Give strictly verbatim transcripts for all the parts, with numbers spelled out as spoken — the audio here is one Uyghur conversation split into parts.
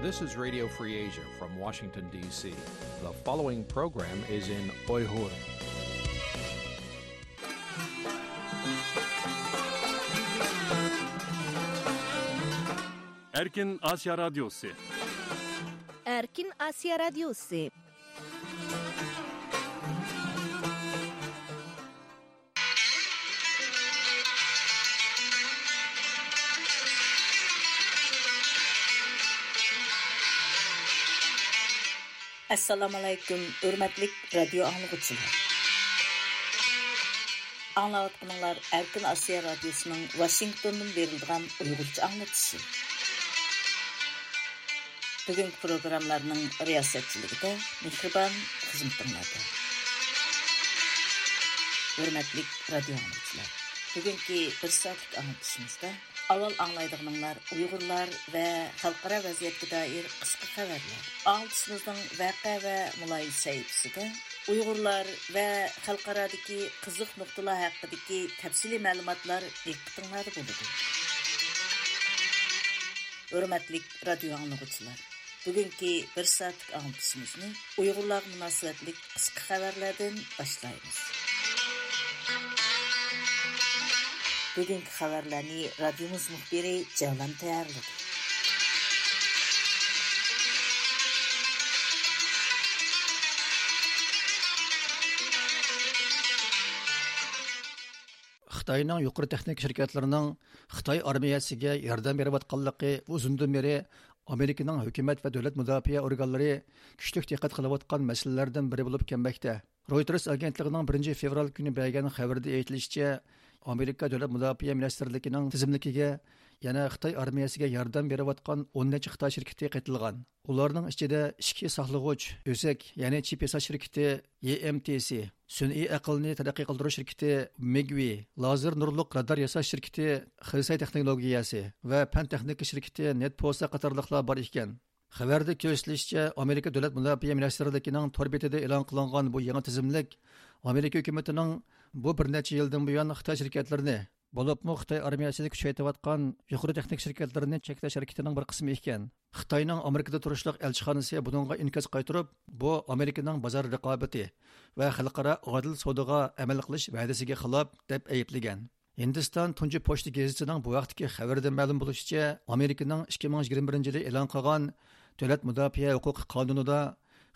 This is Radio Free Asia from Washington, D C. The following program is in Uyghur. Erkin Asya Radyosu. Erkin Asya Radyosu. ئەسسالامۇئەلەيكۇم، ھۆرمەتلىك رادىيو ئاڭلىغۇچىلار. ئاڭلاۋاتقىنىڭلار ئەركىن ئاسىيا رادىيوسىنىڭ ۋاشىنگتوندىن بېرىلىدىغان ئۇيغۇرچە ئاڭلىتىشى. بۈگۈنكى پروگراممىلارنىڭ رىياسەتچىلىكىدە مېھرىبان خىزمىتىڭلاردا. ھۆرمەتلىك رادىيو ئاڭلىغۇچىلار، بۈگۈنكى بىر سائەتلىك ئاڭلىتىشىمىزدا ئاۋۋال ئاڭلايدىغىنىڭلار ئۇيغۇرلار ۋە خەلقئارا ۋەزىيەتكە دائىر قىسقا خەۋەرلەر. ئاڭلىتىشىمىزنىڭ ۋەقە ۋە مۇلاھىزە سەھىپىسىدە ئۇيغۇرلار ۋە خەلقئارادىكى قىزىق نۇقتىلار ھەققىدىكى تەپسىلىي مەلۇماتلار دىققىتىڭلاردا بولىدۇ. ھۆرمەتلىك رادىيو ئاڭلىغۇچىلار، بۈگۈنكى بىر سائەتلىك ئاڭلىتىشىمىزنى ئۇيغۇرلارغا مۇناسىۋەتلىك قىسقا خەۋەرلەردىن باشلايمىز. بۈگۈنكى خەۋەرلەرنى رادىيومىز مۇخبىرى جەۋلان تەييارلىدى. خىتاينىڭ يۇقىرى تېخنىكا شىركەتلىرىنىڭ خىتاي ئارمىيەسىگە ياردەم بېرىۋاتقانلىقى ئۇزۇندىن بېرى ئامېرىكىنىڭ ھۆكۈمەت ۋە دۆلەت مۇداپىئە ئورگانلىرى كۈچلۈك دىققەت قىلىۋاتقان مەسىلىلەردىن بىرى بولۇپ كەلمەكتە. رويتېرس ئاگېنتلىقىنىڭ بىرىنچى فېۋرال كۈنى بەرگەن خەۋىرىدە ئېيتىلىشىچە، ئامېرىكا دۆلەت مۇداپىئە مىنىستىرلىكىنىڭ تىزىملىكىگە يەنە خىتاي ئارمىيەسىگە ياردەم بېرىۋاتقان ئون نەچچە خىتاي شىركىتى قېتىلغان. ئۇلارنىڭ ئىچىدە ئىچكى ساقلىغۇچ، ئۆزەك، يەنى چىپ ياساش شىركىتى ئېم تى سى، سۈنئىي ئەقىلنى تەرەققىي قىلدۇرۇش شىركىتى مىگۋى، لازېر نۇرلۇق رادار ياساش شىركىتى خېسەي تېخنولوگىيەسى ۋە پەن تېخنىكا شىركىتى نېتپوسا قاتارلىقلار بار ئىكەن. خەۋەردە كۆرسىتىلىشىچە، ئامېرىكا دۆلەت مۇداپىئە مىنىستىرلىكىنىڭ تور بېتىدە ئېلان قىلىنغان بۇ يېڭى تىزىملىك ئامېرىكا ھۆكۈمىتىنىڭ بۇ بىر نەچچە يىلدىن بۇيان خىتاي شىركەتلىرىنى، بولۇپمۇ خىتاي ئارمىيەسىنى كۈچەيتىۋاتقان يۇقىرى تېخنىكا شىركەتلىرىنى چەكلەش ھەرىكىتىنىڭ بىر قىسمى ئىكەن. خىتاينىڭ ئامېرىكىدا تۇرۇشلۇق ئەلچىخانىسى بۇنىڭغا ئىنكاس قايتۇرۇپ، بۇ ئامېرىكىنىڭ بازار رىقابىتى ۋە خەلقئارا ئادىل سودىغا ئەمەل قىلىش ۋەدىسىگە خىلاپ، دەپ ئەيىبلىگەن. ھىندىستان تۇنجى پوچتا گېزىتىنىڭ بۇ ھەقتىكى خەۋىرىدە مەلۇم بولۇشىچە، ئامېرىكىنىڭ ئىككى مىڭ يىگىرمە بىرىنچى يىلى ئېلان قىلغان دۆلەت مۇداپىئە ھوقۇقى قانۇنىدا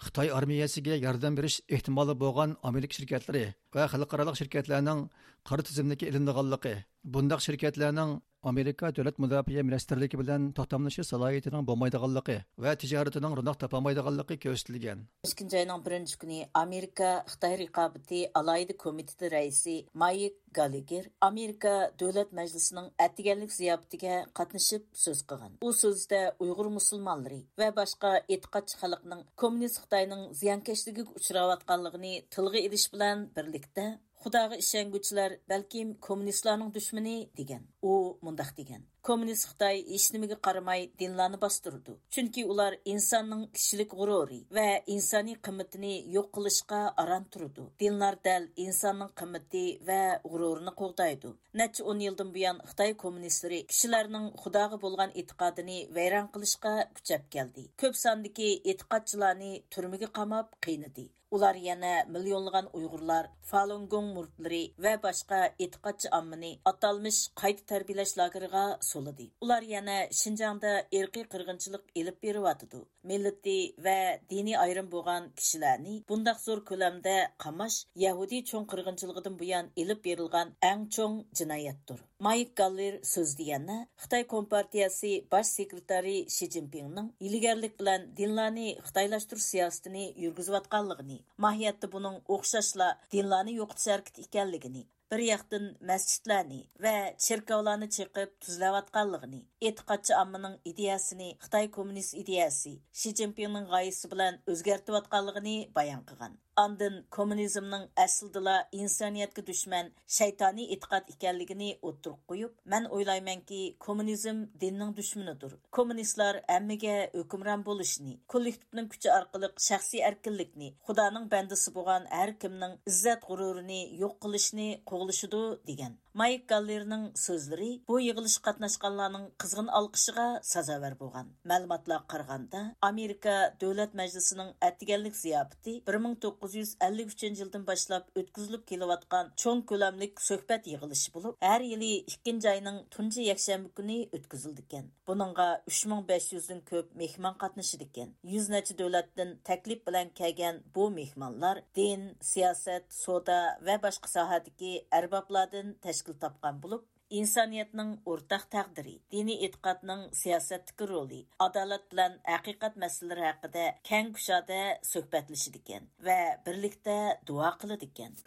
خىتاي ئارمىيەسىگە ياردەم بېرىش ئېھتىمالى بولغان ئامېرىكا شىركەتلىرى ۋە خەلقئارالىق شىركەتلەرنىڭ قارا تىزىملىككە ئېلىنىدىغانلىقى، بۇنداق شىركەتلەرنىڭ ئامېرىكا دۆلەت مۇداپىئە مىنىستىرلىكى بىلەن توختاملىشىش سالاھىيىتىنىڭ بولمايدىغانلىقى ۋە تىجارىتىنىڭ روناق تاپالمايدىغانلىقى كۆرسىتىلگەن. ئىككىنچى ئاينىڭ بىرىنچى كۈنى ئامېرىكا خىتاي رىقابىتى ئالاھىدە كومىتېتى رەئىسى مايك گاللېگېر ئامېرىكا دۆلەت مەجلىسىنىڭ ئەتىگەنلىك زىياپىتىگە قاتنىشىپ سۆز قىلغان. ئۇ سۆزىدە ئۇيغۇر مۇسۇلمانلىرى ۋە باشقا ئېتىقادچى خەلقنىڭ كوممۇنىست خىتاينىڭ زىيانكەشلىكىگە ئۇچراۋاتقانلىقىنى تىلغا ئېلىش بىلەن بىرلىكتە، خۇداغا ئىشەنگۈچىلەر بەلكىم كوممۇنىستلارنىڭ دۈشمىنى، دېگەن. ئۇ مۇنداق دېگەن: كوممۇنىست خىتاي ھېچنېمىگە قارىماي دىنلارنى باستۇرىدۇ. چۈنكى ئۇلار ئىنساننىڭ كىشىلىك غۇرۇرى ۋە ئىنسانىي قىممىتىنى يوق قىلىشقا ئاران تۇرىدۇ. دىنلار دەل ئىنساننىڭ قىممىتى ۋە غۇرۇرىنى قوغدايدۇ. نەچچە ئون يىلدىن بۇيان خىتاي كوممۇنىستلىرى كىشىلەرنىڭ خۇداغا بولغان ئېتىقادىنى ۋەيران قىلىشقا كۈچەپ كەلدى. كۆپ ساندىكى ئېتىقادچىلارنى تۈرمىگە قاماپ قىينىدى. ئۇلار يەنە مىليونلىغان ئۇيغۇرلار، فالۇنگوڭ مۇرىتلىرى ۋە باشقا ئېتىقادچى ئاممىنى ئاتالمىش قايتا تەربىيەلەش لاگېرىغا سولىدى. ئۇلار يەنە شىنجاڭدا ئىرقىي قىرغىنچىلىق ئېلىپ بېرىۋاتىدۇ. مىللىتى ۋە دىنىي ئايرىم بولغان كىشىلەرنى بۇنداق زور كۆلەمدە قاماش يەھۇدىي چوڭ قىرغىنچىلىقىدىن بۇيان ئېلىپ بېرىلغان ئەڭ چوڭ جىنايەتتۇر. مايك گاللېر سۆزىدە يەنە خىتاي كومپارتىيەسى باش سېكرېتارى شى جىنپىڭنىڭ ھىيلىگەرلىك بىلەن دىنلارنى خىتايلاشتۇرۇش سىياسىتىنى يۈرگۈزۈۋاتقانلىقىنى، ماھىيەتتە بۇنىڭ ئوخشاشلا دىنلارنى يوقىتىش ھەرىكىتى ئىكەنلىكىنى، بىر ياقتىن مەسچىتلەرنى ۋە چېركاۋلارنى چېقىپ تۈزلەۋاتقانلىقىنى، ئېتىقادچى ئاممىنىڭ ئىدىيەسىنى خىتاي كوممۇنىست ئىدىيەسى، شى جىنپىڭنىڭ غايىسى بىلەن ئۆزگەرتىۋاتقانلىقىنى بايان قىلغان. ئاندىن كوممۇنىزمنىڭ ئەسلىدىلا ئىنسانىيەتكە دۈشمەن، شەيتانىي ئېتىقاد ئىكەنلىكىنى ئوتتۇرىغا قويۇپ، مەن ئويلايمەنكى، كوممۇنىزم دىننىڭ دۈشمىنىدۇر. كوممۇنىستلار ھەممىگە ھۆكۈمران بولۇشنى، كوللېكتىپنىڭ كۈچى ئارقىلىق شەخسىي ئەركىنلىكنى، خۇدانىڭ بەندىسى بولغان ھەر كىمنىڭ ئىززەت غۇرۇرىنى يوق قىلىشنى قوغلىشىدۇ، دېگەن. مايك گاللېرنىڭ سۆزلىرى بۇ يىغىلىشقا قاتناشقانلارنىڭ قىزغىن ئالقىشىغا سازاۋەر بولغان. مەلۇماتلارغا قارىغاندا، ئامېرىكا دۆلەت مەجلىسىنىڭ ئەتىگەنلىك زىياپىتى بىر مىڭ توققۇز يۈز ئەللىك ئۈچىنچى يىلدىن باشلاپ ئۆتكۈزۈلۈپ كېلىۋاتقان چوڭ كۆلەملىك سۆھبەت يىغىلىشى بولۇپ، ھەر يىلى ئىككىنچى ئاينىڭ تۇنجى يەكشەنبە كۈنى ئۆتكۈزۈلىدىكەن. بۇنىڭغا ئۈچ مىڭ بەش يۈزدىن كۆپ مېھمان قاتنىشىدىكەن. يۈز نەچچە دۆلەتتىن تەكلىپ بىلەن كەلگەن بۇ مېھمانلار دىن، سىياسەت، سودا ۋە باشقا ساھەدىكى ئەربابلاردىن تەشكىل تاپقان بولۇپ، ئىنسانىيەتنىڭ ئورتاق تەقدىرى، دىنىي ئېتىقادنىڭ سىياسەتتىكى رولى، ئادالەت بىلەن ھەقىقەت مەسىلىلىرى ھەققىدە كەڭ كۇشادە سۆھبەتلىشىدىكەن ۋە بىرلىكتە دۇئا قىلىدىكەن.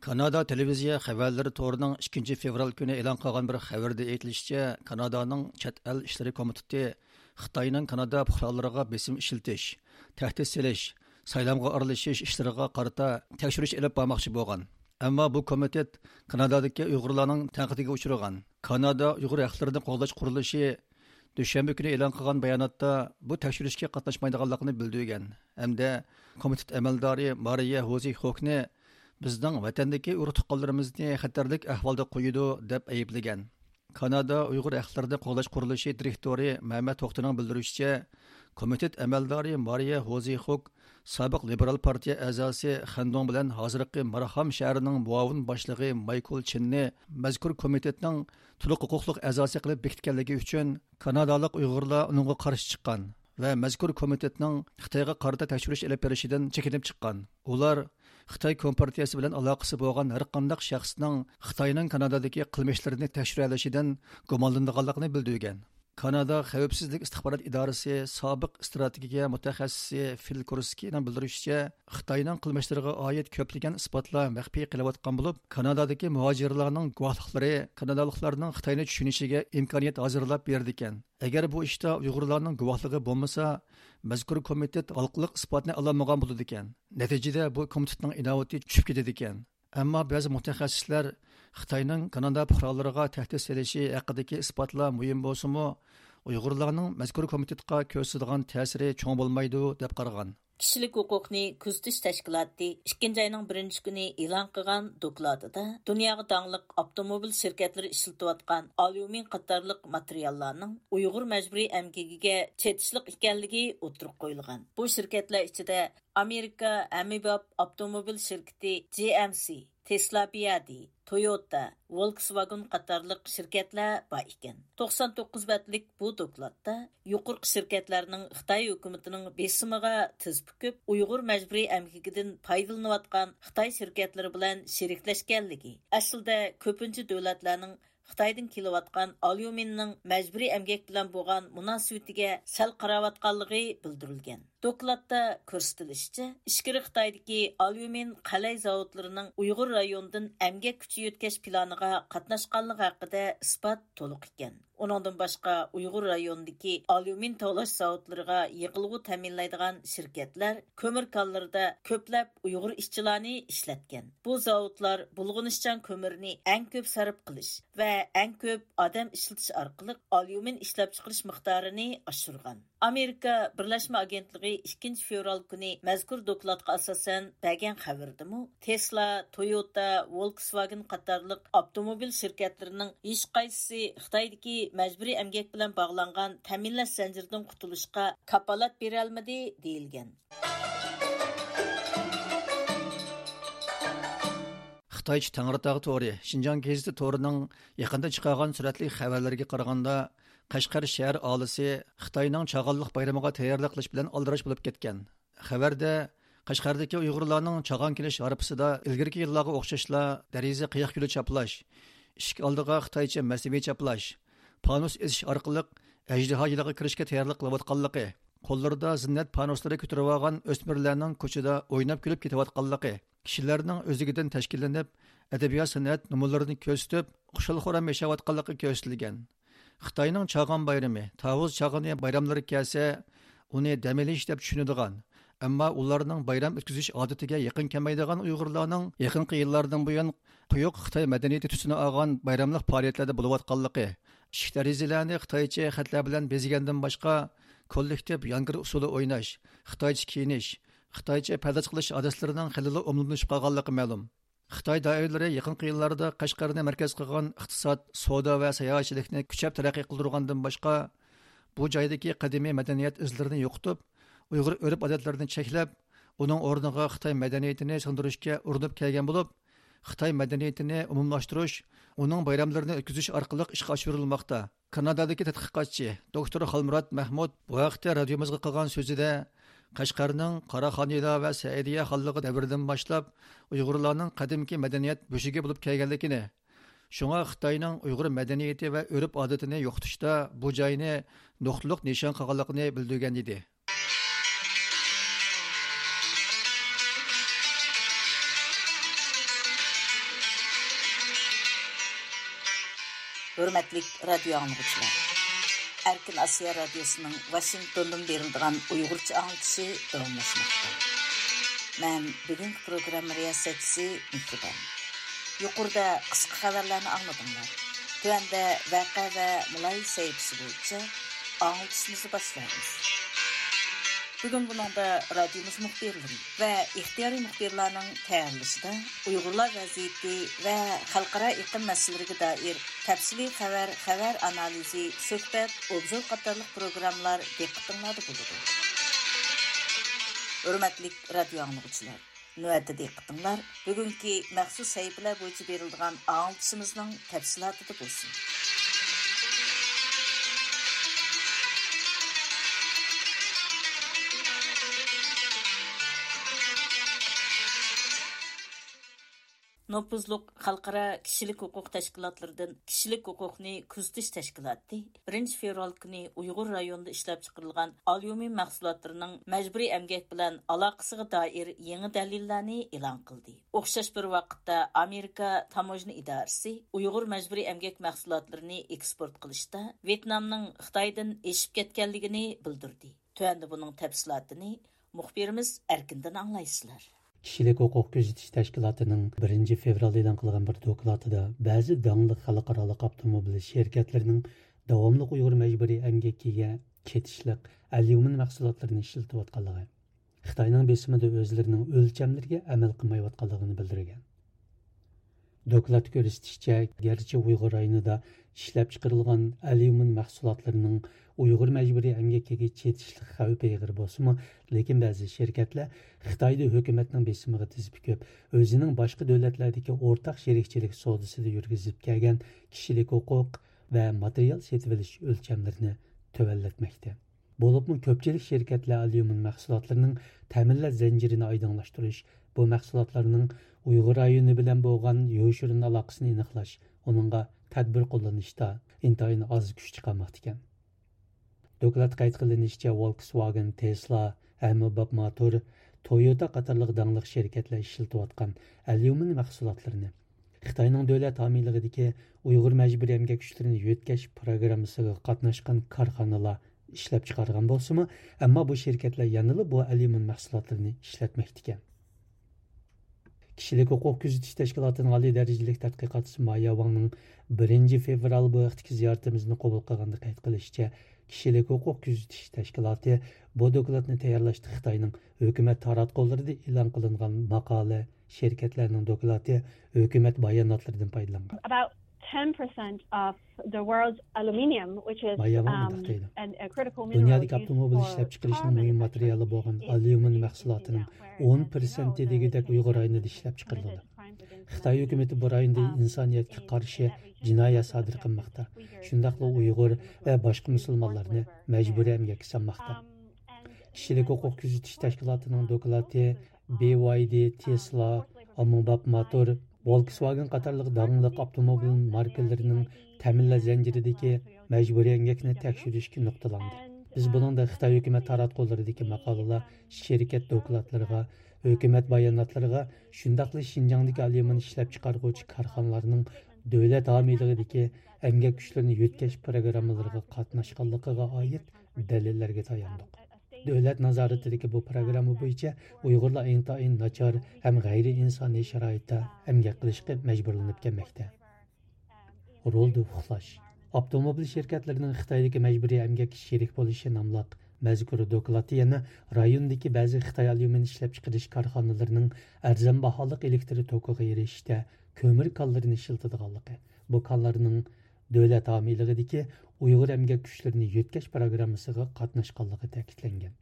كانادا تېلېۋىزىيە خەۋەرلىرى تورىنىڭ ئىككىنچى فېۋرال كۈنى ئېلان قىلغان بىر خەۋىرىدە ئېيتىلىشىچە، كانادانىڭ چەت ئەل ئىشلىرى كومىتېتى خىتاينىڭ كانادا پۇقرالىرىغا بېسىم ئىشلىتىش، تەھدىت سېلىش، سايلامغا ئارىلىشىش ئىشلىرىغا قارىتا تەكشۈرۈش ئېلىپ بارماقچى بولغان. ئەمما بۇ كومىتېت كانادادىكى ئۇيغۇرلارنىڭ تەنقىدىگە ئۇچرىغان. كانادا ئۇيغۇر ھەقلىرىنى قوغداش قۇرۇلۇشى دۈشەنبە كۈنى ئېلان قىلغان باياناتتا بۇ تەكشۈرۈشكە قاتناشمايدىغانلىقىنى بىلدۈرگەن ھەمدە كومىتېت ئەمەلدارى مارىيە ھوزى خوكنى بىزنىڭ ۋەتەندىكى ئۇرۇق تۇغقانلىرىمىزنى خەتەرلىك ئەھۋالدا قويىدۇ، دەپ ئەيىبلىگەن. كانادا ئۇيغۇر ھەقلىرىنى قوغداش قۇرۇلۇشى دىرېكتورى مەمەت توختىنىڭ بىلدۈرۈشىچە، كومىتېت ئەمەلدارى مارىيە ھوزى خوك سابىق لىبېرال پارتىيە ئەزاسى خەندۇڭ بىلەن ھازىرقى مارخام شەھىرىنىڭ مۇئاۋىن باشلىقى مايكل چىننى مەزكۇر كومىتېتنىڭ تولۇق ھوقۇقلۇق ئەزاسى قىلىپ بېكىتكەنلىكى ئۈچۈن، كانادالىق ئۇيغۇرلار ئۇنىڭغا قارشى چىققان ۋە مەزكۇر كومىتېتنىڭ خىتايغا قارىتا تەكشۈرۈش ئېلىپ بېرىشىدىن چېكىنىپ چىققان. ئۇلار خىتاي كومپارتىيىسى بىلەن ئالاقىسى بولغان ھەرقانداق شەخسنىڭ خىتاينىڭ كانادادىكى قىلمىشلىرىنى تەكشۈرەلىشىدىن گۇمانلىنىدىغانلىقىنى بىلدۈرگەن. كانادا خەۋپسىزلىك ئىستىخبارات ئىدارىسى سابىق ئىستراتېگىيە مۇتەخەسسىسى فىل كۇرسكىنىڭ بىلدۈرۈشىچە، خىتاينىڭ قىلمىشلىرىغا ئائىت كۆپلىگەن ئىسپاتلار مەخپىي قېلىۋاتقان بولۇپ، كانادادىكى مۇھاجىرلارنىڭ گۇۋاھلىقلىرى كانادالىقلارنىڭ خىتاينى چۈشىنىشىگە ئىمكانىيەت ھازىرلاپ بېرىدىكەن. ئەگەر بۇ ئىشتا ئۇيغۇرلارنىڭ گۇۋاھلىقى بولمىسا، مەزكۇر كومىتېت ھالقىلىق ئىسپاتنى ئالالمىغان بولىدىكەن. نەتىجىدە بۇ كومىتېتنىڭ ئىناۋىتى چۈشۈپ كېتىدىكەن. ئەمما بەزى مۇتەخەسسىسلەر خىتاينىڭ كانادا پۇقرالىرىغا تەھدىت سېلىشى ھەققىدىكى ئىسپاتلار مۇھىم بولسىمۇ، ئۇيغۇرلارنىڭ مەزكۇر كومىتېتقا كۆرسىتىدىغان تەسىرى چوڭ بولمايدۇ، دەپ قارىغان. كىشىلىك ھوقۇقنى كۆزىتىش تەشكىلاتى ئىككىنچى ئاينىڭ بىرىنچى كۈنى ئېلان قىلغان دوكلاتىدا دۇنياغا داڭلىق ئاپتوموبىل شىركەتلىرى ئىشلىتىۋاتقان ئاليۇمىن قاتارلىق ماتېرىياللارنىڭ ئۇيغۇر مەجبۇرىي ئەمگىكىگە چېتىشلىق ئىكەنلىكى ئوتتۇرىغا قويۇلغان. بۇ شىركەتلەر ئىچىدە ئامېرىكا ھەممىباب ئاپتوموبىل شىركىتى جي ئەم سى، تېسلا بىيادى، تويوتا، ۋولكسۋاگېن قاتارلىق شىركەتلەر بار ئىكەن. توقسان توققۇز بەتلىك بۇ دوكلاتتا يۇقىرىقى شىركەتلەرنىڭ خىتاي ھۆكۈمىتىنىڭ بېسىمىغا تىز پۈكۈپ، ئۇيغۇر مەجبۇرىي ئەمگىكىدىن پايدىلىنىۋاتقان خىتاي شىركەتلىرى بىلەن شېرىكلەشكەنلىكى، ئەسلىدە كۆپىنچە دۆلەتلەرنىڭ خىتايدىن كېلىۋاتقان ئاليۇمىننىڭ مەجبۇرىي ئەمگەك بىلەن بولغان مۇناسىۋىتىگە سەل قاراۋاتقانلىقى بىلدۈرۈلگەن. دوكلاتتا كۆرسىتىلىشىچە، ئىچكىرى خىتايدىكى ئاليۇمىن قەلەي زاۋۇتلىرىنىڭ ئۇيغۇر رايونىدىن ئەمگەك كۈچى يۆتكەش پىلانىغا قاتناشقانلىقى ھەققىدە ئىسپات تولۇق ئىكەن. ئۇنىڭدىن باشقا، ئۇيغۇر رايونىدىكى ئاليۇمىن تاۋلاش زاۋۇتلىرىغا يېقىلغۇ تەمىنلەيدىغان شىركەتلەر كۆمۈر كانلىرىدا كۆپلەپ ئۇيغۇر ئىشچىلارنى ئىشلەتكەن. بۇ زاۋۇتلار بۇلغىنىشچان كۆمۈرنى ئەڭ كۆپ سەرپ قىلىش ۋە ئەڭ كۆپ ئادەم ئىشلىتىش ئارقىلىق ئاليۇمىن ئىشلەپچىقىرىش مىقدارىنى ئاشۇرغان. ئامېرىكا بىرلەشمە ئاگېنتلىقى ئىككىنچى فېۋرال كۈنى مەزكۇر دوكلاتقا ئاساسەن بەرگەن خەۋىرىدىمۇ، تېسلا، تويوتا، ۋولكسۋاگېن قاتارلىق ئاپتوموبىل شىركەتلىرىنىڭ ھېچقايسىسى خىتايدىكى مەجبۇرىي ئەمگەك بىلەن باغلانغان تەمىنلەش زەنجىرىدىن قۇتۇلۇشقا كاپالەت بېرەلمىدى، دېيىلگەن. خىتايچە تەڭرىتاغ تورى شىنجاڭ گېزىتى تورىنىڭ يېقىندا چىقارغان سۈرەتلىك خەۋەرلىرىگە قارىغاندا، قەشقەر شەھەر ئاھالىسى خىتاينىڭ چاغانلىق بايرىمىغا تەييارلىق قىلىش بىلەن ئالدىراش بولۇپ كەتكەن. خەۋەردە، قەشقەردىكى ئۇيغۇرلارنىڭ چاغان كېلىش ھارپىسىدا ئىلگىرىكى يىللارغا ئوخشاشلا دېرىزە قىياق گۈلى چاپلاش، ئىشىك ئالدىغا خىتايچە مەسنىۋى چاپلاش، پانۇس ئېسىش ئارقىلىق ئەجدىھا يىلىغا كىرىشكە تەييارلىق قىلىۋاتقانلىقى، قوللىرىدا زىننەت پانۇسلىرى كۆتۈرۈۋالغان ئۆسمۈرلەرنىڭ كوچىدا ئويناپ كۈلۈپ كېتىۋاتقانلىقى، كىشىلەرنىڭ ئۆزلۈكىدىن تەشكىللىنىپ، ئەدەبىيات-سەنئەت نومۇرلىرىنى كۆرسىتىپ، خۇشال-خۇرام ياشاۋاتقانلىقى كۆرسىتىلگەن. خىتاينىڭ چاغان بايرىمى، تاۋۇز چاغىنى بايراملىرى كەلسە، ئۇنى دەم ئېلىش دەپ چۈشىنىدىغان، ئەمما ئۇلارنىڭ بايرام ئۆتكۈزۈش ئادىتىگە يېقىن كەلمەيدىغان ئۇيغۇرلارنىڭ يېقىنقى يىللاردىن بۇيان قويۇق خىتاي مەدەنىيىتى تۈسىنى ئالغان بايراملىق پائالىيەتلەردە بولۇۋاتقانلىقى، ئىشىك دېرىزىلەرنى خىتايچە خەتلەر بىلەن بېزىگەندىن باشقا، كوللېكتىپ يانگىر ئۇسسۇلى ئويناش، خىتايچە كىيىنىش، خىتايچە پەرداز قىلىش ئادەتلىرىنىڭ خېلىلا ئومۇملىشىپ قالغانلىقى مەلۇم. خىتاي دائىرىلىرى يېقىنقى يىللاردا قەشقەرنى مەركەز قىلغان ئىقتىساد، سودا ۋە ساياھەتچىلىكنى كۈچەپ تەرەققىي قىلدۇرغاندىن باشقا، بۇ جايدىكى قەدىمىي مەدەنىيەت ئىزلىرىنى يوقىتىپ، ئۇيغۇر ئۆرپ-ئادەتلىرىنى چەكلەپ، ئۇنىڭ ئورنىغا خىتاي مەدەنىيىتىنى سىڭدۈرۈشكە ئۇرۇنۇپ كەلگەن بولۇپ، خىتاي مەدەنىيىتىنى ئومۇملاشتۇرۇش، ئۇنىڭ بايراملىرىنى ئۆتكۈزۈش ئارقىلىق ئىشقا ئاشۇرۇلماقتا. كانادادىكى تەتقىقاتچى دوكتور خالمۇرات مەھمۇد بۇ ھەقتە رادىيومىزغا قىلغان سۆزىدە، قەشقەرنىڭ قاراخانىيلار ۋە سەئىدىيە خانلىقى دەۋرىدىن باشلاپ ئۇيغۇرلارنىڭ قەدىمكى مەدەنىيەت بۆشۈكى بولۇپ كەلگەنلىكىنى، شۇڭا خىتاينىڭ ئۇيغۇر مەدەنىيىتى ۋە ئۆرپ-ئادىتىنى يوقىتىشتا بۇ جاينى نۇقتىلىق نىشان قىلغانلىقىنى بىلدۈرگەن ئىدى. ھۆرمەتلىك رادىيو ئاڭلىغۇچىلار! ئەركىن ئاسىيا رادىيوسىنىڭ ۋاشىنگتوندىن بېرىلىدىغان ئۇيغۇرچە ئاڭلىتىشى داۋاملاشماقتا. مەن بۈگۈنكى پروگرامما رىياسەتچىسى مېھرىبان. يۇقىرىدا قىسقا خەۋەرلەرنى ئاڭلىدىڭلار. تۆۋەندە ۋەقە ۋە مۇلاھىزە سەھىپىسى بويىچە ئاڭلىتىشىمىزنى باشلايمىز. بۈگۈن بۇنىڭدا رادىيومىز مۇخبىرلىرى ۋە ئىختىيارىي مۇخبىرلارنىڭ تەييارلىشىدا ئۇيغۇرلار ۋەزىيىتى ۋە خەلقئارا ئېقىم مەسىلىلىرىگە دائىر تەپسىلىي خەۋەر، خەۋەر ئانالىزى، سۆھبەت، ئوبزور قاتارلىق پروگراممىلار دىققىتىڭلاردا بولىدۇ. ھۆرمەتلىك رادىيو ئاڭلىغۇچىلار! نۆۋەتتە دىققىتىڭلار بۈگۈنكى مەخسۇس سەھىپىلەر بويىچە بېرىلىدىغان ئاڭلىتىشىمىزنىڭ تەپسىلاتىدا بولسۇن. نوپۇزلۇق خەلقئارا كىشىلىك ھوقۇق تەشكىلاتلىرىدىن كىشىلىك ھوقۇقنى كۆزىتىش تەشكىلاتى بىرىنچى فېۋرال كۈنى ئۇيغۇر رايونىدا ئىشلەپچىقىرىلغان ئاليۇمىن مەھسۇلاتلىرىنىڭ مەجبۇرىي ئەمگەك بىلەن ئالاقىسىغا دائىر يېڭى دەلىللەرنى ئېلان قىلدى. ئوخشاش بىر ۋاقىتتا ئامېرىكا تاموژنا ئىدارىسى ئۇيغۇر مەجبۇرىي ئەمگەك مەھسۇلاتلىرىنى ئېكسپورت قىلىشتا ۋيېتنامنىڭ خىتايدىن ئېشىپ كەتكەنلىكىنى بىلدۈردى. تۆۋەندە بۇنىڭ تەپسىلاتىنى مۇخبىرىمىز ئەركىندىن ئاڭلايسىلەر. كىشىلىك ھوقۇق كۆزىتىش تەشكىلاتىنىڭ بىرىنچى فېۋرال ئېلان قىلغان بىر دوكلاتىدا بەزى داڭلىق خەلقئارالىق ئاپتوموبىل شىركەتلىرىنىڭ داۋاملىق ئۇيغۇر مەجبۇرىي ئەمگىكىگە چېتىشلىق ئەليۇمىن مەھسۇلاتلىرىنى ئىشلىتىۋاتقانلىقى، خىتاينىڭ بېسىمىدا ئۆزلىرىنىڭ ئۆلچەملىرىگە ئەمەل قىلمايۋاتقانلىقىنى بىلدۈرگەن. دوكلاتتا كۆرسىتىشىچە، گەرچە ئۇيغۇر رايونىدا ئىشلەپچىقىرىلغان ئەليۇمىن مەھسۇلاتلىرىنىڭ ئۇيغۇر مەجبۇرىي ئەمگىكىگە چېتىشلىق خەۋپى ئېغىر بولسىمۇ، لېكىن بەزى شىركەتلەر خىتايدا ھۆكۈمەتنىڭ بېسىمىغا تىز پۈكۈپ، ئۆزىنىڭ باشقا دۆلەتلەردىكى ئورتاق شېرىكچىلىك سودىسىدا يۈرگۈزۈپ كەلگەن كىشىلىك ھوقۇق ۋە ماتېرىيال سېتىۋېلىش ئۆلچەملىرىنى تۆۋەنلەتمەكتە. بولۇپمۇ كۆپچىلىك شىركەتلەر ئاليۇمىن مەھسۇلاتلىرىنىڭ تەمىنلەش زەنجىرىنى ئايدىڭلاشتۇرۇش، بۇ مەھسۇلاتلارنىڭ ئۇيغۇر رايونى بىلەن بولغان يوشۇرۇن ئالاقىسىنى ئېنىقلاش، ئۇنىڭغا تەدبىر قوللىنىشتا ئىنتايىن ئاز كۈچ چىقارماقتىكەن. دوكلاتتا قەيت قىلىنىشىچە، ۋولكسۋاگېن، تېسلا، ئەممىباب ماتور، تويوتا قاتارلىق داڭلىق شىركەتلەر ئىشلىتىۋاتقان ئەليۇمىن مەھسۇلاتلىرىنى خىتاينىڭ دۆلەت ھامىيلىقىدىكى ئۇيغۇر مەجبۇرىي ئەمگەك كۈچلىرىنى يۆتكەش پىروگراممىسىغا قاتناشقان كارخانىلار ئىشلەپچىقارغان بولسىمۇ، ئەمما بۇ شىركەتلەر يەنىلا بۇ ئەليۇمىن مەھسۇلاتلىرىنى ئىشلەتمەكتىكەن. كىشىلىك ھوقۇق كۆزىتىش تەشكىلاتىنىڭ ئالىي دەرىجىلىك تەتقىقاتچىسى مايا ۋاڭنىڭ بىرىنچى فېۋرال بۇ ھەقتىكى زىيارىتىمىزنى قوبۇل قىلغاندا قەيت قىلىشىچە، كىشىلىك ھوقۇق كۆزىتىش تەشكىلاتى بۇ دوكلاتنى تەييارلاشتا خىتاينىڭ ھۆكۈمەت تاراتقۇلىرىدا ئېلان قىلىنغان ماقالە، شىركەتلەرنىڭ دوكلاتى، ھۆكۈمەت باياناتلىرىدىن پايدىلانغان. About ten percent of the world's aluminium, which is مايا ۋاڭ مۇنداق دەيدۇ. دۇنيادىكى ئاپتوموبىل ئىشلەپچىقىرىشنىڭ مۇھىم ماتېرىيالى بولغان ئاليۇمىن مەھسۇلاتىنىڭ ئون پىرسەنتى دېگۈدەك ئۇيغۇر رايونىدا ئىشلەپچىقىرىلىدۇ. خىتاي ھۆكۈمىتى بۇ رايوندا ئىنسانىيەتكە قارشى جىنايەت سادىر قىلماقتا، شۇنداقلا ئۇيغۇر ۋە باشقا مۇسۇلمانلارنى مەجبۇرىي ئەمگەككە سالماقتا. كىشىلىك ھوقۇق كۆزىتىش تەشكىلاتىنىڭ دوكلاتى، بى ۋاي دى، تېسلا، ئاممىباب ماتور، ۋولكسۋاگېن قاتارلىق داڭلىق ئاپتوموبىل ماركىلىرىنىڭ تەمىنلەش زەنجىرىدىكى مەجبۇرىي ئەمگەكنى تەكشۈرۈشكە نۇقتىلاندى. بىز بۇنىڭدا خىتاي ھۆكۈمەت تاراتقۇلىرىدىكى ماقالىلەر، شىركەت دوكلاتلىرىغا، ھۆكۈمەت باياناتلىرىغا، شۇنداقلا شىنجاڭدىكى ئاليۇمىن ئىشلەپچىقارغۇچى كارخانىلارنىڭ دۆلەت ھامىيلىقىدىكى ئەمگەك كۈچلىرىنى يۆتكەش پىروگراممىلىرىغا قاتناشقانلىقىغا ئائىت دەلىللەرگە تاياندۇق. دۆلەت نازارىتىدىكى بۇ پىروگرامما بويىچە ئۇيغۇرلار ئىنتايىن ناچار ھەم غەيرىئىنسانىي شارائىتتا ئەمگەك قىلىشقا مەجبۇرلىنىپ كەلمەكتە. رولدا ئۇخلاش. ئاپتوموبىل شىركەتلىرىنىڭ خىتايدىكى مەجبۇرىي ئەمگەككە شېرىك بولۇشى ناملىق مەزكۇر دوكلاتتا يەنە رايوندىكى بەزى خىتاي ئاليۇمىن ئىشلەپچىقىرىش كارخانىلىرىنىڭ ئەرزان باھالىق ئېلېكتر توكىغا ئېرىشىشتە كۆمۈر كانلىرىنى ئىشلىتىدىغانلىقى، بۇ كانلارنىڭ دۆلەت ھامىيلىقىدىكى ئۇيغۇر ئەمگەك كۈچلىرىنى يۆتكەش پىروگراممىسىغا قاتناشقانلىقى تەكىتلەنگەن.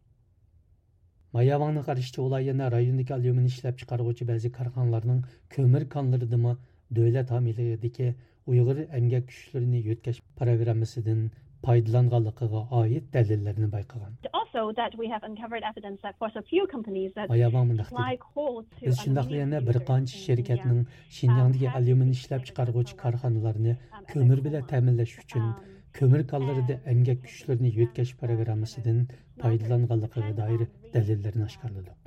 مايا ۋاڭنىڭ قارىشىچە، ئۇلار يەنە رايوندىكى ئاليۇمىن ئىشلەپچىقارغۇچى بەزى كارخانىلارنىڭ كۆمۈر كانلىرىدىمۇ دۆلەت ھامىيلىقىدىكى ئۇيغۇر ئەمگەك كۈچلىرىنى يۆتكەش پىروگراممىسىدىن پايدىلانغانلىقىغا ئائىت دەلىللەرنى بايقىغان. Also, that we have uncovered evidence that for a few companies that مايا ۋاڭ مۇنداق دېدى: بىز شۇنداقلا يەنە بىر قانچە شىركەتنىڭ شىنجاڭدىكى ئاليۇمىن ئىشلەپچىقارغۇچى كارخانىلارنى كۆمۈر بىلەن تەمىنلەش ئۈچۈن كۆمۈر كانلىرىدا ئەمگەك كۈچلىرىنى يۆتكەش پىروگراممىسىدىن پايدىلانغانلىقىغا دائىر دەلىللەرنى ئاشكارىلىدۇق.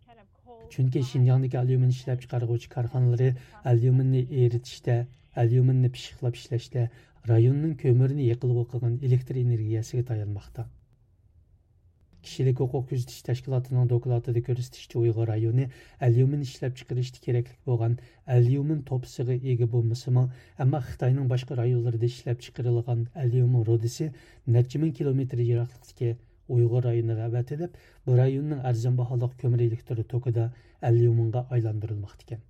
چۈنكى شىنجاڭدىكى ئاليۇمىن ئىشلەپچىقارغۇچى كارخانىلىرى ئاليۇمىننى ئېرىتىشتە، ئاليۇمىننى پىششىقلاپ ئىشلەشتە، رايوننىڭ كۆمۈرنى يېقىلغۇ قىلغان ئېلېكتر ئېنېرگىيەسىگە تايانماقتا. كىشىلىك ھوقۇق كۆزىتىش تەشكىلاتىنىڭ دوكلاتىدا كۆرسىتىشىچە، ئۇيغۇر رايونى ئاليۇمىن ئىشلەپچىقىرىشتا كېرەكلىك بولغان ئاليۇمىن توپىسىغا ئىگە بولمىسىمۇ، ئەمما خىتاينىڭ باشقا رايونلىرىدا ئىشلەپچىقىرىلغان ئاليۇمىن رۇدىسى نەچچە مىڭ كىلومېتىر يىراقلىقتىكى ئۇيغۇر رايونىغا ئەۋەتىلىپ، بۇ رايوننىڭ ئەرزان باھالىق كۆمۈر ئېلېكتر توكىدا ئاليۇمىنغا ئايلاندۇرۇلماقتا ئىكەن.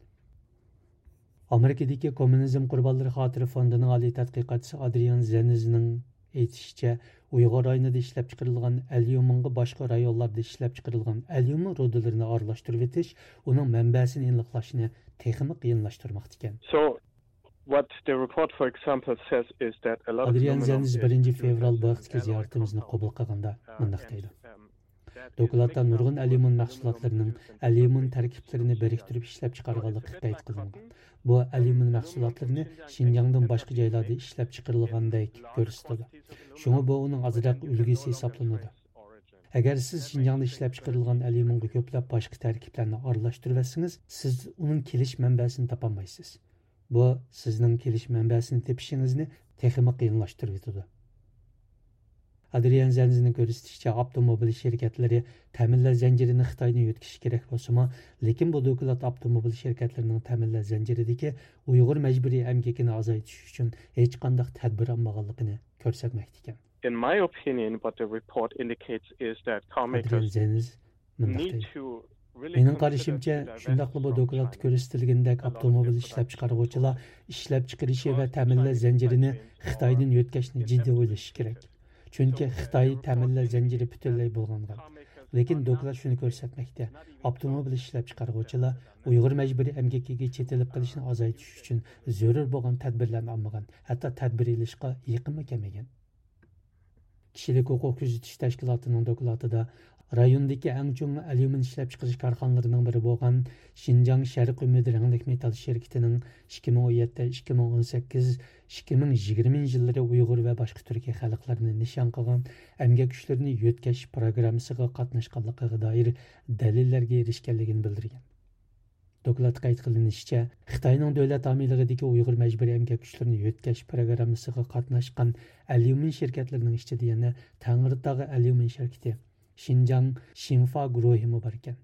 ئامېرىكىدىكى كوممۇنىزم قۇربانلىرى خاتىرە فوندىنىڭ ئالىي تەتقىقاتچىسى ئادرىيان زېنزنىڭ ئېيتىشىچە، ئۇيغۇر رايونىدا ئىشلەپچىقىرىلغان ئەليۇمىنغا باشقا رايونلاردا ئىشلەپچىقىرىلغان ئەليۇمىن رۇدىلىرىنى ئارىلاشتۇرۇۋېتىش ئۇنىڭ مەنبەسىنى ئېنىقلاشنى تېخىمۇ قىيىنلاشتۇرماقتا ئىكەن. So, what the report, for example, says is that a lot of ئادرىيان زېنز بىرىنچى فېۋرال بۇ ھەقتىكى زىيارىتىمىزنى قوبۇل قىلغاندا مۇنداق دەيدۇ: دوكلاتتا نۇرغۇن ئەليۇمىن مەھسۇلاتلىرىنىڭ ئەليۇمىن تەركىبلىرىنى بىرىكتۈرۈپ ئىشلەپچىقارغانلىقى قەيت قىلىنغان. بۇ ئەليۇمىن مەھسۇلاتلىرىنى شىنجاڭدىن باشقا جايلاردا ئىشلەپچىقىرىلغاندەك كۆرسىتىدۇ. شۇڭا بۇ ئۇنىڭ ئازراق ئۈلگىسى ھېسابلىنىدۇ. ئەگەر سىز شىنجاڭدا ئىشلەپچىقىرىلغان ئەليۇمىنغا كۆپلەپ باشقا تەركىبلەرنى ئارىلاشتۇرۇۋەتسىڭىز، سىز ئۇنىڭ كېلىش مەنبەسىنى تاپالمايسىز. بۇ سىزنىڭ كېلىش مەنبەسىنى تېپىشىڭىزنى تېخىمۇ قىيىنلاشتۇرۇۋېتىدۇ. ئادرىيان زەنزىنىڭ كۆرسىتىشىچە، ئاپتوموبىل شىركەتلىرى تەمىنلەش زەنجىرىنى خىتايدىن يۆتكىشى كېرەك بولسىمۇ، لېكىن بۇ دوكلات ئاپتوموبىل شىركەتلىرىنىڭ تەمىنلەش زەنجىرىدىكى ئۇيغۇر مەجبۇرىي ئەمگىكىنى ئازايتىش ئۈچۈن ھېچقانداق تەدبىر ئالمىغانلىقىنى كۆرسەتمەكتە ئىكەن. In my opinion, what the report indicates is that car makers ئادرىيان زەنز مۇنداق دەيدۇ: مېنىڭ قارىشىمچە، شۇنداقلا بۇ دوكلاتتا كۆرسىتىلگىنىدەك ئاپتوموبىل ئىشلەپچىقارغۇچىلار ئىشلەپچىقىرىشى ۋە تەمىنلەش زەنجىرىنى خىتايدىن يۆتكەشنى جىددىي ئويلىشى كېرەك. چۈنكى خىتاي تەمىنلەش زەنجىرى پۈتۈنلەي بۇلغانغان. لېكىن دوكلات شۇنى كۆرسەتمەكتە: ئاپتوموبىل ئىشلەپچىقارغۇچىلار ئۇيغۇر مەجبۇرىي ئەمگىكىگە چېتىلىپ قېلىشنى ئازايتىش ئۈچۈن زۆرۈر بولغان تەدبىرلەرنى ئالمىغان، ھەتتا تەدبىر ئېلىشقا يېقىنمۇ كەلمىگەن. كىشىلىك ھوقۇق كۆزىتىش تەشكىلاتىنىڭ دوكلاتىدا رايوندىكى ئەڭ چوڭ ئەليۇمىن ئىشلەپچىقىرىش كارخانىلىرىنىڭ بىرى بولغان شىنجاڭ شەرقىي ئۈمىد رەڭلىك مېتال شىركىتىنىڭ ئىككى مىڭ ئون يەتتە، ئىككى مىڭ ئون سەككىز، ئىككى مىڭ يىگىرمىنچى يىللىرى ئۇيغۇر ۋە باشقا تۈركىي خەلقلەرنى نىشان قىلغان ئەمگەك كۈچلىرىنى يۆتكەش پىروگراممىسىغا قاتناشقانلىقىغا دائىر دەلىللەرگە ئېرىشكەنلىكىنى بىلدۈرگەن. دوكلاتتا قەيت قىلىنىشىچە، خىتاينىڭ دۆلەت ھامىيلىقىدىكى ئۇيغۇر مەجبۇرىي ئەمگەك كۈچلىرىنى يۆتكەش پىروگراممىسىغا قاتناشقان ئەليۇمىن شىركەتلىرىنىڭ ئىچىدە يەنە تەڭرىتاغ ئەليۇمىن شىركىتى، شىنجاڭ شىنفا گۇرۇھىمۇ باركەن.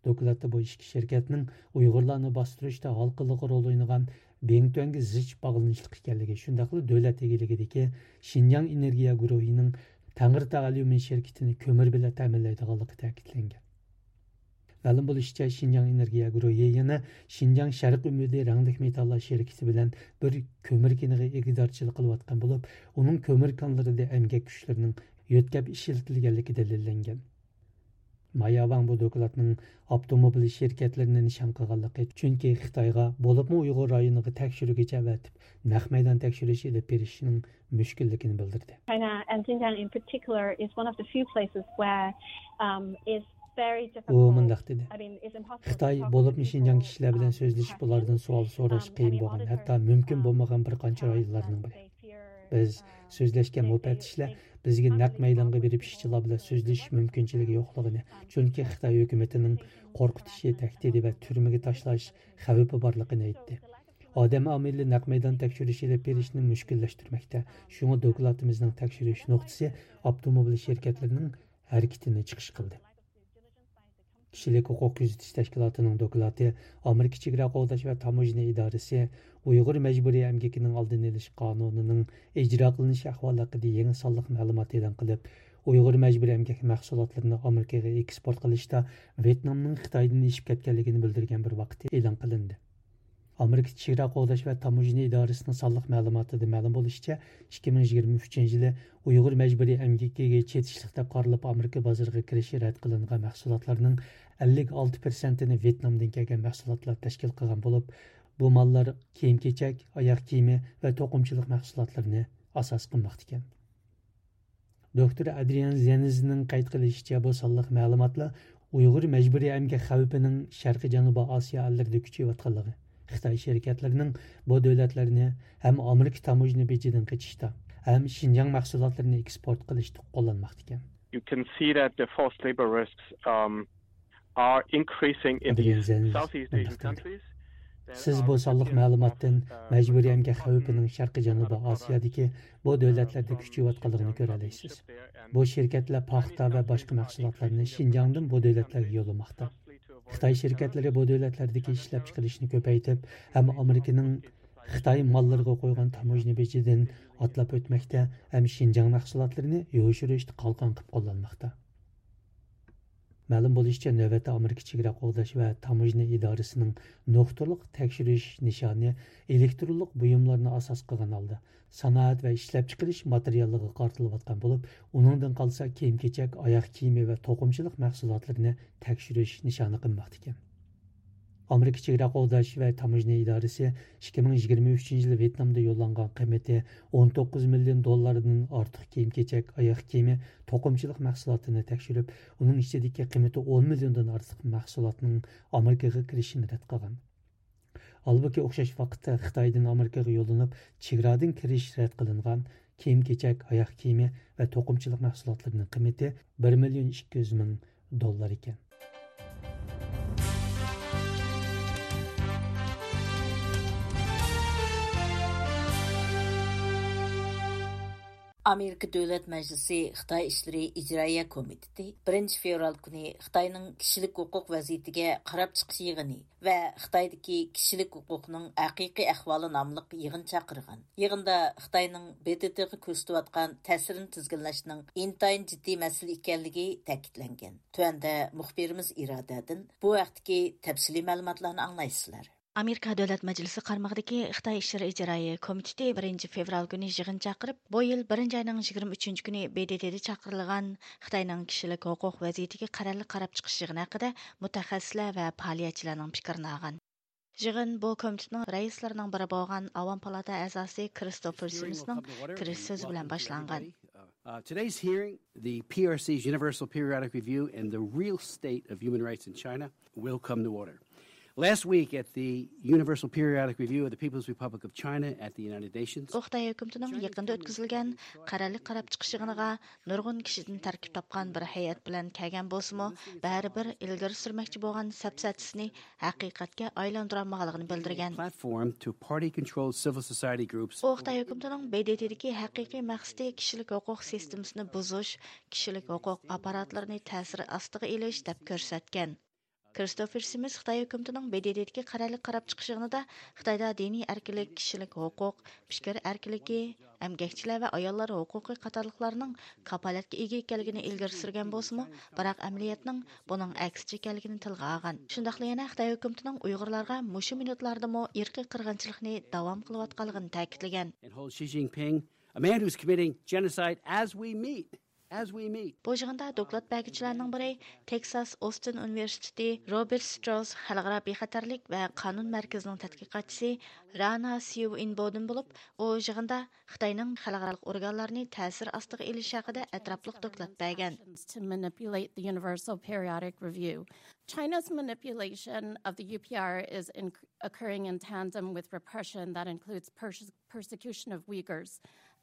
دوكلاتتا بۇ ئىككى شىركەتنىڭ ئۇيغۇرلارنى باستۇرۇشتا ھالقىلىق رول ئوينىغان بىڭتۈەنگە زىچ باغلىنىشلىق ئىكەنلىكى، شۇنداقلا دۆلەت ئىگىلىكىدىكى شىنجاڭ ئېنېرگىيە گۇرۇھىنىڭ تەڭرىتاغ ئەليۇمىن شىركىتىنى كۆمۈر بىلەن تەمىنلەيدىغانلىقى تەكىتلەنگەن. مەلۇم بولۇشىچە، شىنجاڭ ئېنېرگىيە گۇرۇھى يەنە شىنجاڭ شەرقىي ئۈمىدى رەڭلىك مېتاللار شىركىتى بىلەن بىر كۆمۈر كېنىغا ئىگىدارچىلىق قىلىۋاتقان بولۇپ، ئۇنىڭ كۆمۈر كانلىرىدا ئەمگەك كۈچلىرىنىڭ يۆتكەپ ئىشلىتىلگەنلىكى دەلىللەنگەن. مايا ۋاڭ بۇ دوكلاتنىڭ ئاپتوموبىل شىركەتلىرىنى نىشان قىلغانلىقى، چۈنكى خىتايغا، بولۇپمۇ ئۇيغۇر رايونىغا تەكشۈرگۈچى ئەۋەتىپ، نەق مەيدان تەكشۈرۈش ئېلىپ بېرىشنىڭ مۈشكۈللۈكىنى بىلدۈردى. China and Xinjiang in particular is one of the few places where, um, it's very ئۇ difficult. مۇنداق دېدى: I mean, it's impossible to خىتاي، talk بولۇپمۇ to شىنجاڭ people, كىشىلەر بىلەن um, سۆزلىشىپ، questions. ئۇلاردىن سوئال سوراش Um, قىيىن and the بولغان، ھەتتا auditors, مۇمكىن um, بولمىغان بىر قانچە um, رايونلارنىڭ بىرى. They fear, بىز uh, سۆزلەشكەن مۇپەتتىشلەر بىزگە نەق مەيدانغا بېرىپ ئىشچىلار بىلەن سۆزلىشىش مۇمكىنچىلىكى يوقلۇقىنى، چۈنكى خىتاي ھۆكۈمىتىنىڭ قورقۇتۇشى، تەھدىتى ۋە تۈرمىگە تاشلاش خەۋپى بارلىقىنى ئېيتتى. ئادەم ئامىلى نەق مەيدان تەكشۈرۈش ئېلىپ بېرىشنى مۈشكۈللەشتۈرمەكتە. شۇڭا دوكلاتىمىزنىڭ تەكشۈرۈش نۇقتىسى ئاپتوموبىل شىركەتلىرىنىڭ ھەرىكىتىنى چىقىش قىلدى. كىشىلىك ھوقۇق كۆزىتىش تەشكىلاتىنىڭ دوكلاتى ئامېرىكا چېگرا قوغداش ۋە تاموژنا ئىدارىسى ئۇيغۇر مەجبۇرىي ئەمگىكىنىڭ ئالدىنى ئېلىش قانۇنىنىڭ ئىجرا قىلىنىش ئەھۋالى ھەققىدە يېڭى سانلىق مەلۇمات ئېلان قىلىپ، ئۇيغۇر مەجبۇرىي ئەمگەك مەھسۇلاتلىرىنى ئامېرىكىغا ئېكسپورت قىلىشتا ۋيېتنامنىڭ خىتايدىن ئېشىپ كەتكەنلىكىنى بىلدۈرگەن بىر ۋاقىتتا ئېلان قىلىندى. ئامېرىكا چېگرا قوغداش ۋە تاموژنا ئىدارىسىنىڭ سانلىق مەلۇماتىدا مەلۇم بولۇشىچە، ئىككى مىڭ يىگىرمە ئۈچىنچى يىلى ئۇيغۇر مەجبۇرىي ئەمگىكىگە چېتىشلىق دەپ قارىلىپ، ئامېرىكا بازىرىغا كىرىشى رەت قىلىنغان مەھسۇلاتلارنىڭ ئەللىك ئالتە پىرسەنتىنى ۋيېتنامدىن كەلگەن مەھسۇلاتلار تەشكىل قىلغان بولۇپ، بۇ ماللار كىيىم-كېچەك، ئاياغ كىيىمى ۋە توقۇمىچىلىق مەھسۇلاتلىرىنى ئاساس قىلماقتا ئىكەن. دوكتور ئادرىيان زېنزنىڭ قەيت قىلىشىچە، بۇ سانلىق مەلۇماتلار ئۇيغۇر مەجبۇرىي ئەمگەك خەۋپىنىڭ شەرقىي جەنۇبىي ئاسىيا ئەللىرىدە كۈچىيىۋاتقانلىقى، خىتاي شىركەتلىرىنىڭ بۇ دۆلەتلەرنى ھەم ئامېرىكا تاموژنا بېجىدىن قېچىشتا، ھەم شىنجاڭ مەھسۇلاتلىرىنى ئېكسپورت قىلىشتا قوللانماقتا ئىكەن. You can see that the forced labor risks, um, are increasing in ئادرىيان these زېنز Southeast Asian مۇنداق دېدى. Countries. سىز بۇ سانلىق مەلۇماتتىن مەجبۇرىي ئەمگەك خەۋپىنىڭ شەرقىي جەنۇبىي ئاسىيادىكى بۇ دۆلەتلەردە كۈچىيىۋاتقانلىقىنى كۆرەلەيسىز. بۇ شىركەتلەر پاختا ۋە باشقا مەھسۇلاتلارنى شىنجاڭدىن بۇ دۆلەتلەرگە يوللىماقتا. خىتاي شىركەتلىرى بۇ دۆلەتلەردىكى ئىشلەپچىقىرىشنى كۆپەيتىپ، ھەم ئامېرىكىنىڭ خىتاي ماللىرىغا قويغان تاموژنا بېجىدىن ئاتلاپ ئۆتمەكتە، ھەم شىنجاڭ مەھسۇلاتلىرىنى يوشۇرۇشتا قالقان قىلىپ قوللانماقتا. مەلۇم بولۇشىچە، نۆۋەتتە ئامېرىكا چېگرا قوغداش ۋە تاموژنا ئىدارىسىنىڭ نۇقتىلىق تەكشۈرۈش نىشانى ئېلېكترونلۇق بۇيۇملارنى ئاساس قىلغان ھالدا، سانائەت ۋە ئىشلەپچىقىرىش ماتېرىياللىرىغا قارىتىلىۋاتقان بولۇپ، ئۇنىڭدىن قالسا كىيىم-كېچەك، ئاياغ كىيىمى ۋە توقۇمىچىلىق مەھسۇلاتلىرىنى تەكشۈرۈش نىشانى قىلماقتا ئىكەن. ئامېرىكا چېگرا قوغداش ۋە تاموژنا ئىدارىسى ئىككى مىڭ يىگىرمە ئۈچىنچى يىلى ۋيېتنامدا يوللانغان قىممىتى ئون توققۇز مىليون دوللاردىن ئارتۇق كىيىم-كېچەك، ئاياغ كىيىمى، توقۇمىچىلىق مەھسۇلاتىنى تەكشۈرۈپ، ئۇنىڭ ئىچىدىكى قىممىتى ئون مىليوندىن ئارتۇق مەھسۇلاتنىڭ ئامېرىكىغا كىرىشىنى رەت قىلغان. ھالبۇكى، ئوخشاش ۋاقىتتا خىتايدىن ئامېرىكىغا يوللىنىپ، چېگرادىن كىرىش رەت قىلىنغان كىيىم-كېچەك، ئاياغ كىيىمى ۋە توقۇمىچىلىق مەھسۇلاتلىرىنىڭ قىممىتى بىر مىليون ئىككى يۈز مىڭ دوللار ئىكەن. ئامېرىكا دۆلەت مەجلىسى خىتاي ئىشلىرى ئىجرائىيە كومىتېتى بىرىنچى فېۋرال كۈنى خىتاينىڭ كىشىلىك ھوقۇق ۋەزىيىتىگە قاراپ چىقىش يىغىنى ۋە خىتايدىكى كىشىلىك ھوقۇقنىڭ ھەقىقىي ئەھۋالى ناملىق يىغىن چاقىرغان. يىغىندا خىتاينىڭ ب د ت غا كۆرسىتىۋاتقان تەسىرىنى تىزگىنلەشنىڭ ئىنتايىن جىددىي مەسىلە ئىكەنلىكى تەكىتلەنگەن. تۆۋەندە مۇخبىرىمىز ئىرادەدىن بۇ ھەقتىكى تەپسىلىي مەلۇماتلارنى ئاڭلايسىلەر. ئامېرىكا دۆلەت مەجلىسى قارمىقىدىكى خىتاي ئىشلىرى ئىجرائىيە كومىتېتى بىرىنچى فېۋرال كۈنى يىغىن چاقىرىپ، بۇ يىل بىرىنچى ئاينىڭ يىگىرمە ئۈچىنچى كۈنى ب د ت دا چاقىرىلغان خىتاينىڭ كىشىلىك ھوقۇق ۋەزىيىتىگە قەرەللىك قاراپ چىقىش يىغىنى ھەققىدە مۇتەخەسسىسلەر ۋە پائالىيەتچىلەرنىڭ پىكرىنى ئالغان. يىغىن بۇ كومىتېتنىڭ رەئىسلىرىنىڭ بىرى بولغان ئاۋام پالاتا ئەزاسى كرىستوفېر سىمىسنىڭ كىرىش سۆزى بىلەن باشلانغان. Uh, today's hearing, the P R C's Universal Periodic Review and the Real State of Human Rights in China, will come to order. Last week at the Universal Periodic Review of the People's Republic of China at the United Nations. ئۇ خىتاي ھۆكۈمىتىنىڭ يېقىندا ئۆتكۈزۈلگەن قەرەللىك قاراپ چىقىش يىغىنىغا نۇرغۇن كىشىدىن تەركىب تاپقان بىر ھەيئەت بىلەن كەلگەن بولسىمۇ، بەرىبىر ئىلگىرى سۈرمەكچى بولغان سەپسەتىسىنى ھەقىقەتكە ئايلاندۇرالمىغانلىقىنى بىلدۈرگەن. Platform to party-controlled civil society groups. ئۇ خىتاي ھۆكۈمىتىنىڭ ب د ت دىكى ھەقىقىي مەقسىتى كىشىلىك ھوقۇق سىستېمىسىنى بۇزۇش، كىشىلىك ھوقۇق ئاپپاراتلىرىنى تەسىر ئاستىغا ئېلىش دەپ كۆرسەتكەن. كرىستوفېر سىمىس خىتاي ھۆكۈمىتىنىڭ ب د ت دىكى قەرەللىك قاراپ چىقىش يىغىنىدا خىتايدا دىنىي ئەركىنلىك، كىشىلىك ھوقۇق، پىكىر ئەركىنلىكى، ئەمگەكچىلەر ۋە ئاياللار ھوقۇقى قاتارلىقلارنىڭ كاپالەتكە ئىگە ئىكەنلىكىنى ئىلگىرى سۈرگەن بولسىمۇ، بىراق ئەمەلىيەتنىڭ بۇنىڭ ئەكسىچە ئىكەنلىكىنى تىلغا ئالغان. شۇنداقلا يەنە خىتاي ھۆكۈمىتىنىڭ ئۇيغۇرلارغا مۇشۇ مىنۇتلاردىمۇ ئىرقىي قىرغىنچىلىقنى داۋام قىلىۋاتقانلىقىنى تەكىتلىگەن. And hold Xi Jinping, a man who's committing genocide as we meet, as we meet. بۇ يىغىندا دوكلات بەرگۈچىلەرنىڭ بىرى تېكساس ئوستىن ئۇنىۋېرسىتېتى روبېرت ستراوس خەلقئارا بىخەتەرلىك ۋە قانۇن مەركىزىنىڭ تەتقىقاتچىسى رانا سيۇ ئىنبودىن بولۇپ، ئۇ يىغىندا خىتاينىڭ خەلقئارالىق ئورگانلارنى تەسىر ئاستىغا ئېلىشى ھەققىدە ئەتراپلىق دوكلات بەرگەن. To manipulate the Universal Periodic Review. China's manipulation of the U P R is in, occurring in tandem with repression that includes pers-, persecution of Uyghurs,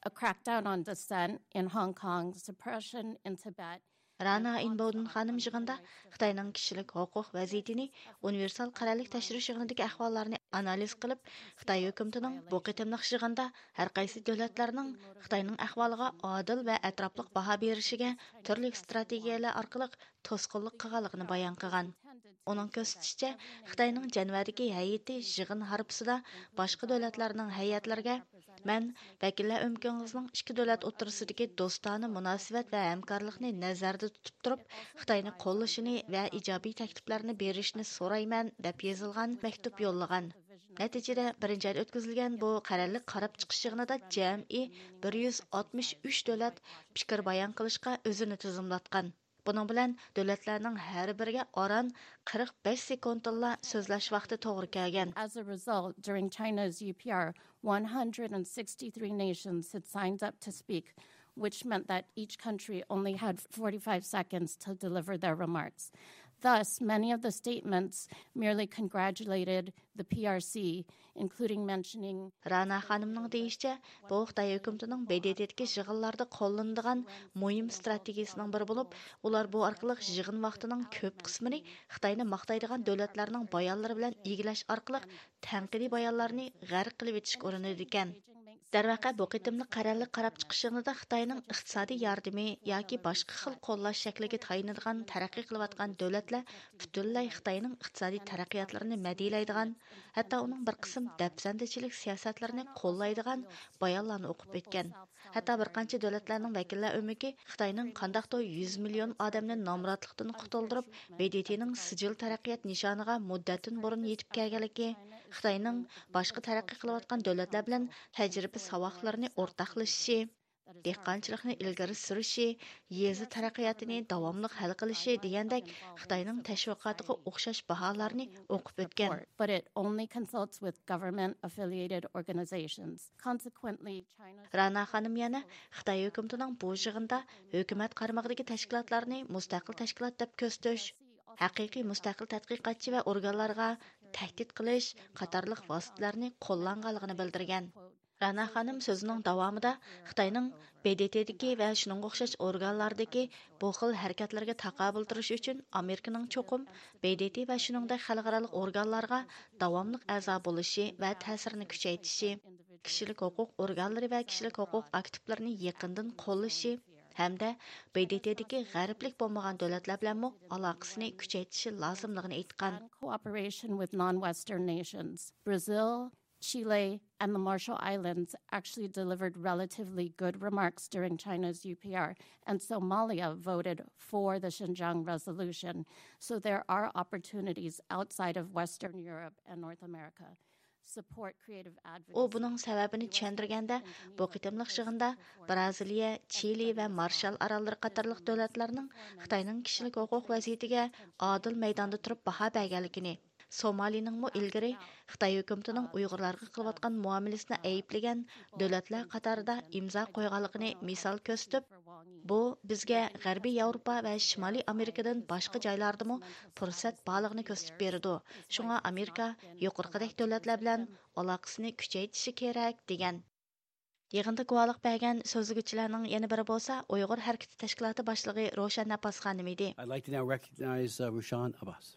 a crackdown on dissent in Hong Kong, suppression in Tibet. رانا ئىنبودىن خانىم يىغىندا خىتاينىڭ كىشىلىك ھوقۇق ۋەزىيىتىنى ئۇنىۋېرسال قەرەللىك تەكشۈرۈش يىغىنىدىكى ئەھۋاللارنى ئانالىز قىلىپ، خىتاي ھۆكۈمىتىنىڭ بۇ قېتىملىق يىغىندا ھەر قايسى دۆلەتلەرنىڭ خىتاينىڭ ئەھۋالىغا ئادىل ۋە ئەتراپلىق باھا بېرىشىگە تۈرلۈك ئىستراتېگىيەلەر ئارقىلىق توسقۇنلۇق قىلغانلىقىنى بايان قىلغان. ئۇنىڭ كۆرسىتىشىچە، خىتاينىڭ جەنۋەدىكى ھەيئىتى يىغىن ھارپىسىدا باشقا دۆلەتلەرنىڭ ھەيئەتلىرىگە، مەن ۋەكىللەر ئۆمىكىڭىزنىڭ ئىككى دۆلەت ئوتتۇرىسىدىكى دوستانە مۇناسىۋەت ۋە ھەمكارلىقنى نەزەردە تۇتۇپ تۇرۇپ، خىتاينى قوللىشىنى ۋە ئىجابىي تەكلىپلەرنى بېرىشىنى سورايمەن، دەپ يېزىلغان مەكتۇپ يوللىغان. نەتىجىدە، بىرىنچى ئايدا ئۆتكۈزۈلگەن بۇ قەرەللىك قاراپ چىقىش يىغىنىدا جەمئىي بىر يۈز ئاتمىش ئۈچ دۆلەت پىكىر بايان قىلىشقا ئۆزىنى تىزىملاتقان. بۇنىڭ بىلەن دۆلەتلەرنىڭ ھەر بىرىگە ئاران قىرىق بەش سېكۇنتتىنلا سۆزلەش ۋاقتى توغرا كەلگەن. As a result, during China's U P R, one hundred sixty-three nations had signed up to speak, which meant that each country only had forty-five seconds to deliver their remarks. Thus, many of the statements merely congratulated the P R C, including mentioning رانا خانىمنىڭ دېيىشىچە، بۇ خىتاي ھۆكۈمىتىنىڭ ب د ت دىكى يىغىنلاردا قوللىنىدىغان مۇھىم ئىستراتېگىيىسىنىڭ بىرى بولۇپ، ئۇلار بۇ ئارقىلىق يىغىن ۋاقتىنىڭ كۆپ قىسمىنى خىتاينى ماختايدىغان دۆلەتلەرنىڭ بايانلىرى بىلەن ئىگىلەش ئارقىلىق تەنقىدىي بايانلارنى غەرق قىلىۋېتىشكە ئۇرۇنىدىكەن. دەرۋەقە، بۇ قېتىملىق قەرەللىك قاراپ چىقىش يىغىنىدا خىتاينىڭ ئىقتىسادىي ياردىمى ياكى باشقا خىل قوللاش شەكلىگە تايىنىدىغان تەرەققىي قىلىۋاتقان دۆلەتلەر پۈتۈنلەي خىتاينىڭ ئىقتىسادىي تەرەققىياتلىرىنى مەدھىيەلەيدىغان، ھەتتا ئۇنىڭ بىر قىسىم دەپسەندىچىلىك سىياسەتلىرىنى قوللايدىغان بايانلارنى ئوقۇپ ئۆتكەن. ھەتتا بىر قانچە دۆلەتلەرنىڭ ۋەكىللەر ئۆمىكى خىتاينىڭ قانداقتۇر يۈز مىليون ئادەمنى نامراتلىقتىن قۇتۇلدۇرۇپ، ب د ت نىڭ سىجىل تەرەققىيات نىشانىغا مۇددەتتىن بۇرۇن يېتىپ كەلگەنلىكى، خىتاينىڭ باشقا تەرەققىي قىلىۋاتقان دۆلەتلەر بىلەن تەجرىبە ساۋاقلىرىنى ئورتاقلىشىشى، دېھقانچىلىقنى ئىلگىرى سۈرۈشى، يېزا تەرەققىياتىنى داۋاملىق ھەل قىلىشى دېگەندەك خىتاينىڭ تەشۋىقاتىغا ئوخشاش باھالارنى ئوقۇپ ئۆتكەن. But it only consults with government affiliated organizations. Consequently, China's رانا خانىم يەنە خىتاي ھۆكۈمىتىنىڭ بۇ يىغىندا ھۆكۈمەت قارمىقىدىكى تەشكىلاتلارنى مۇستەقىل تەشكىلات دەپ كۆرسىتىش، ھەقىقىي مۇستەقىل تەتقىقاتچى ۋە ئورگانلارغا تەھدىت قىلىش قاتارلىق ۋاسىتىلەرنى قوللانغانلىقىنى بىلدۈرگەن. رانا خانىم سۆزىنىڭ داۋامىدا خىتاينىڭ ب د ت دىكى ۋە شۇنىڭغا ئوخشاش ئورگانلاردىكى بۇ خىل ھەرىكەتلەرگە تاقابىل تۇرۇش ئۈچۈن ئامېرىكىنىڭ چوقۇم ب د ت ۋە شۇنىڭدەك خەلقئارالىق ئورگانلارغا داۋاملىق ئەزا بولۇشى ۋە تەسىرىنى كۈچەيتىشى، كىشىلىك ھوقۇق ئورگانلىرى ۋە كىشىلىك ھوقۇق ئاكتىپلىرىنى يېقىندىن قوللىشى ھەمدە ب د ت دىكى غەربلىك بولمىغان دۆلەتلەر بىلەنمۇ ئالاقىسىنى كۈچەيتىشى لازىملىقىنى ئېيتقان. And cooperation with non-Western nations. Brazil, Chile, and the Marshall Islands actually delivered relatively good remarks during China's U P R, and Somalia voted for the Xinjiang resolution. So there are opportunities outside of Western Europe and North America. Support creative advocacy. ئۇ بۇنىڭ سەۋەبىنى چۈشەندۈرگەندە، بۇ قېتىملىق يىغىندا بىرازىلىيە، چىلى ۋە مارشال ئاراللىرى قاتارلىق دۆلەتلەرنىڭ خىتاينىڭ كىشىلىك ھوقۇق ۋەزىيىتىگە ئادىل مەيداندا تۇرۇپ باھا بەرگەنلىكىنى، سومالىنىڭمۇ ئىلگىرى خىتاي ھۆكۈمىتىنىڭ ئۇيغۇرلارغا قىلىۋاتقان مۇئامىلىسىنى ئەيىبلىگەن دۆلەتلەر قاتارىدا ئىمزا قويغانلىقىنى مىسال كۆرسىتىپ، بۇ بىزگە غەربىي ياۋروپا ۋە شىمالىي ئامېرىكىدىن باشقا جايلاردىمۇ پۇرسەت بارلىقىنى كۆرسىتىپ بېرىدۇ. شۇڭا ئامېرىكا يۇقىرىقىدەك دۆلەتلەر بىلەن ئالاقىسىنى كۈچەيتىشى كېرەك، دېگەن. يىغىندا گۇۋاھلىق بەرگەن سۆزلىگۈچىلەرنىڭ يەنە بىرى بولسا ئۇيغۇر ھەرىكىتى تەشكىلاتى باشلىقى روشەن ئەبباس خانىم ئىدى. I'd like to now recognize, uh, Rushan Abbas.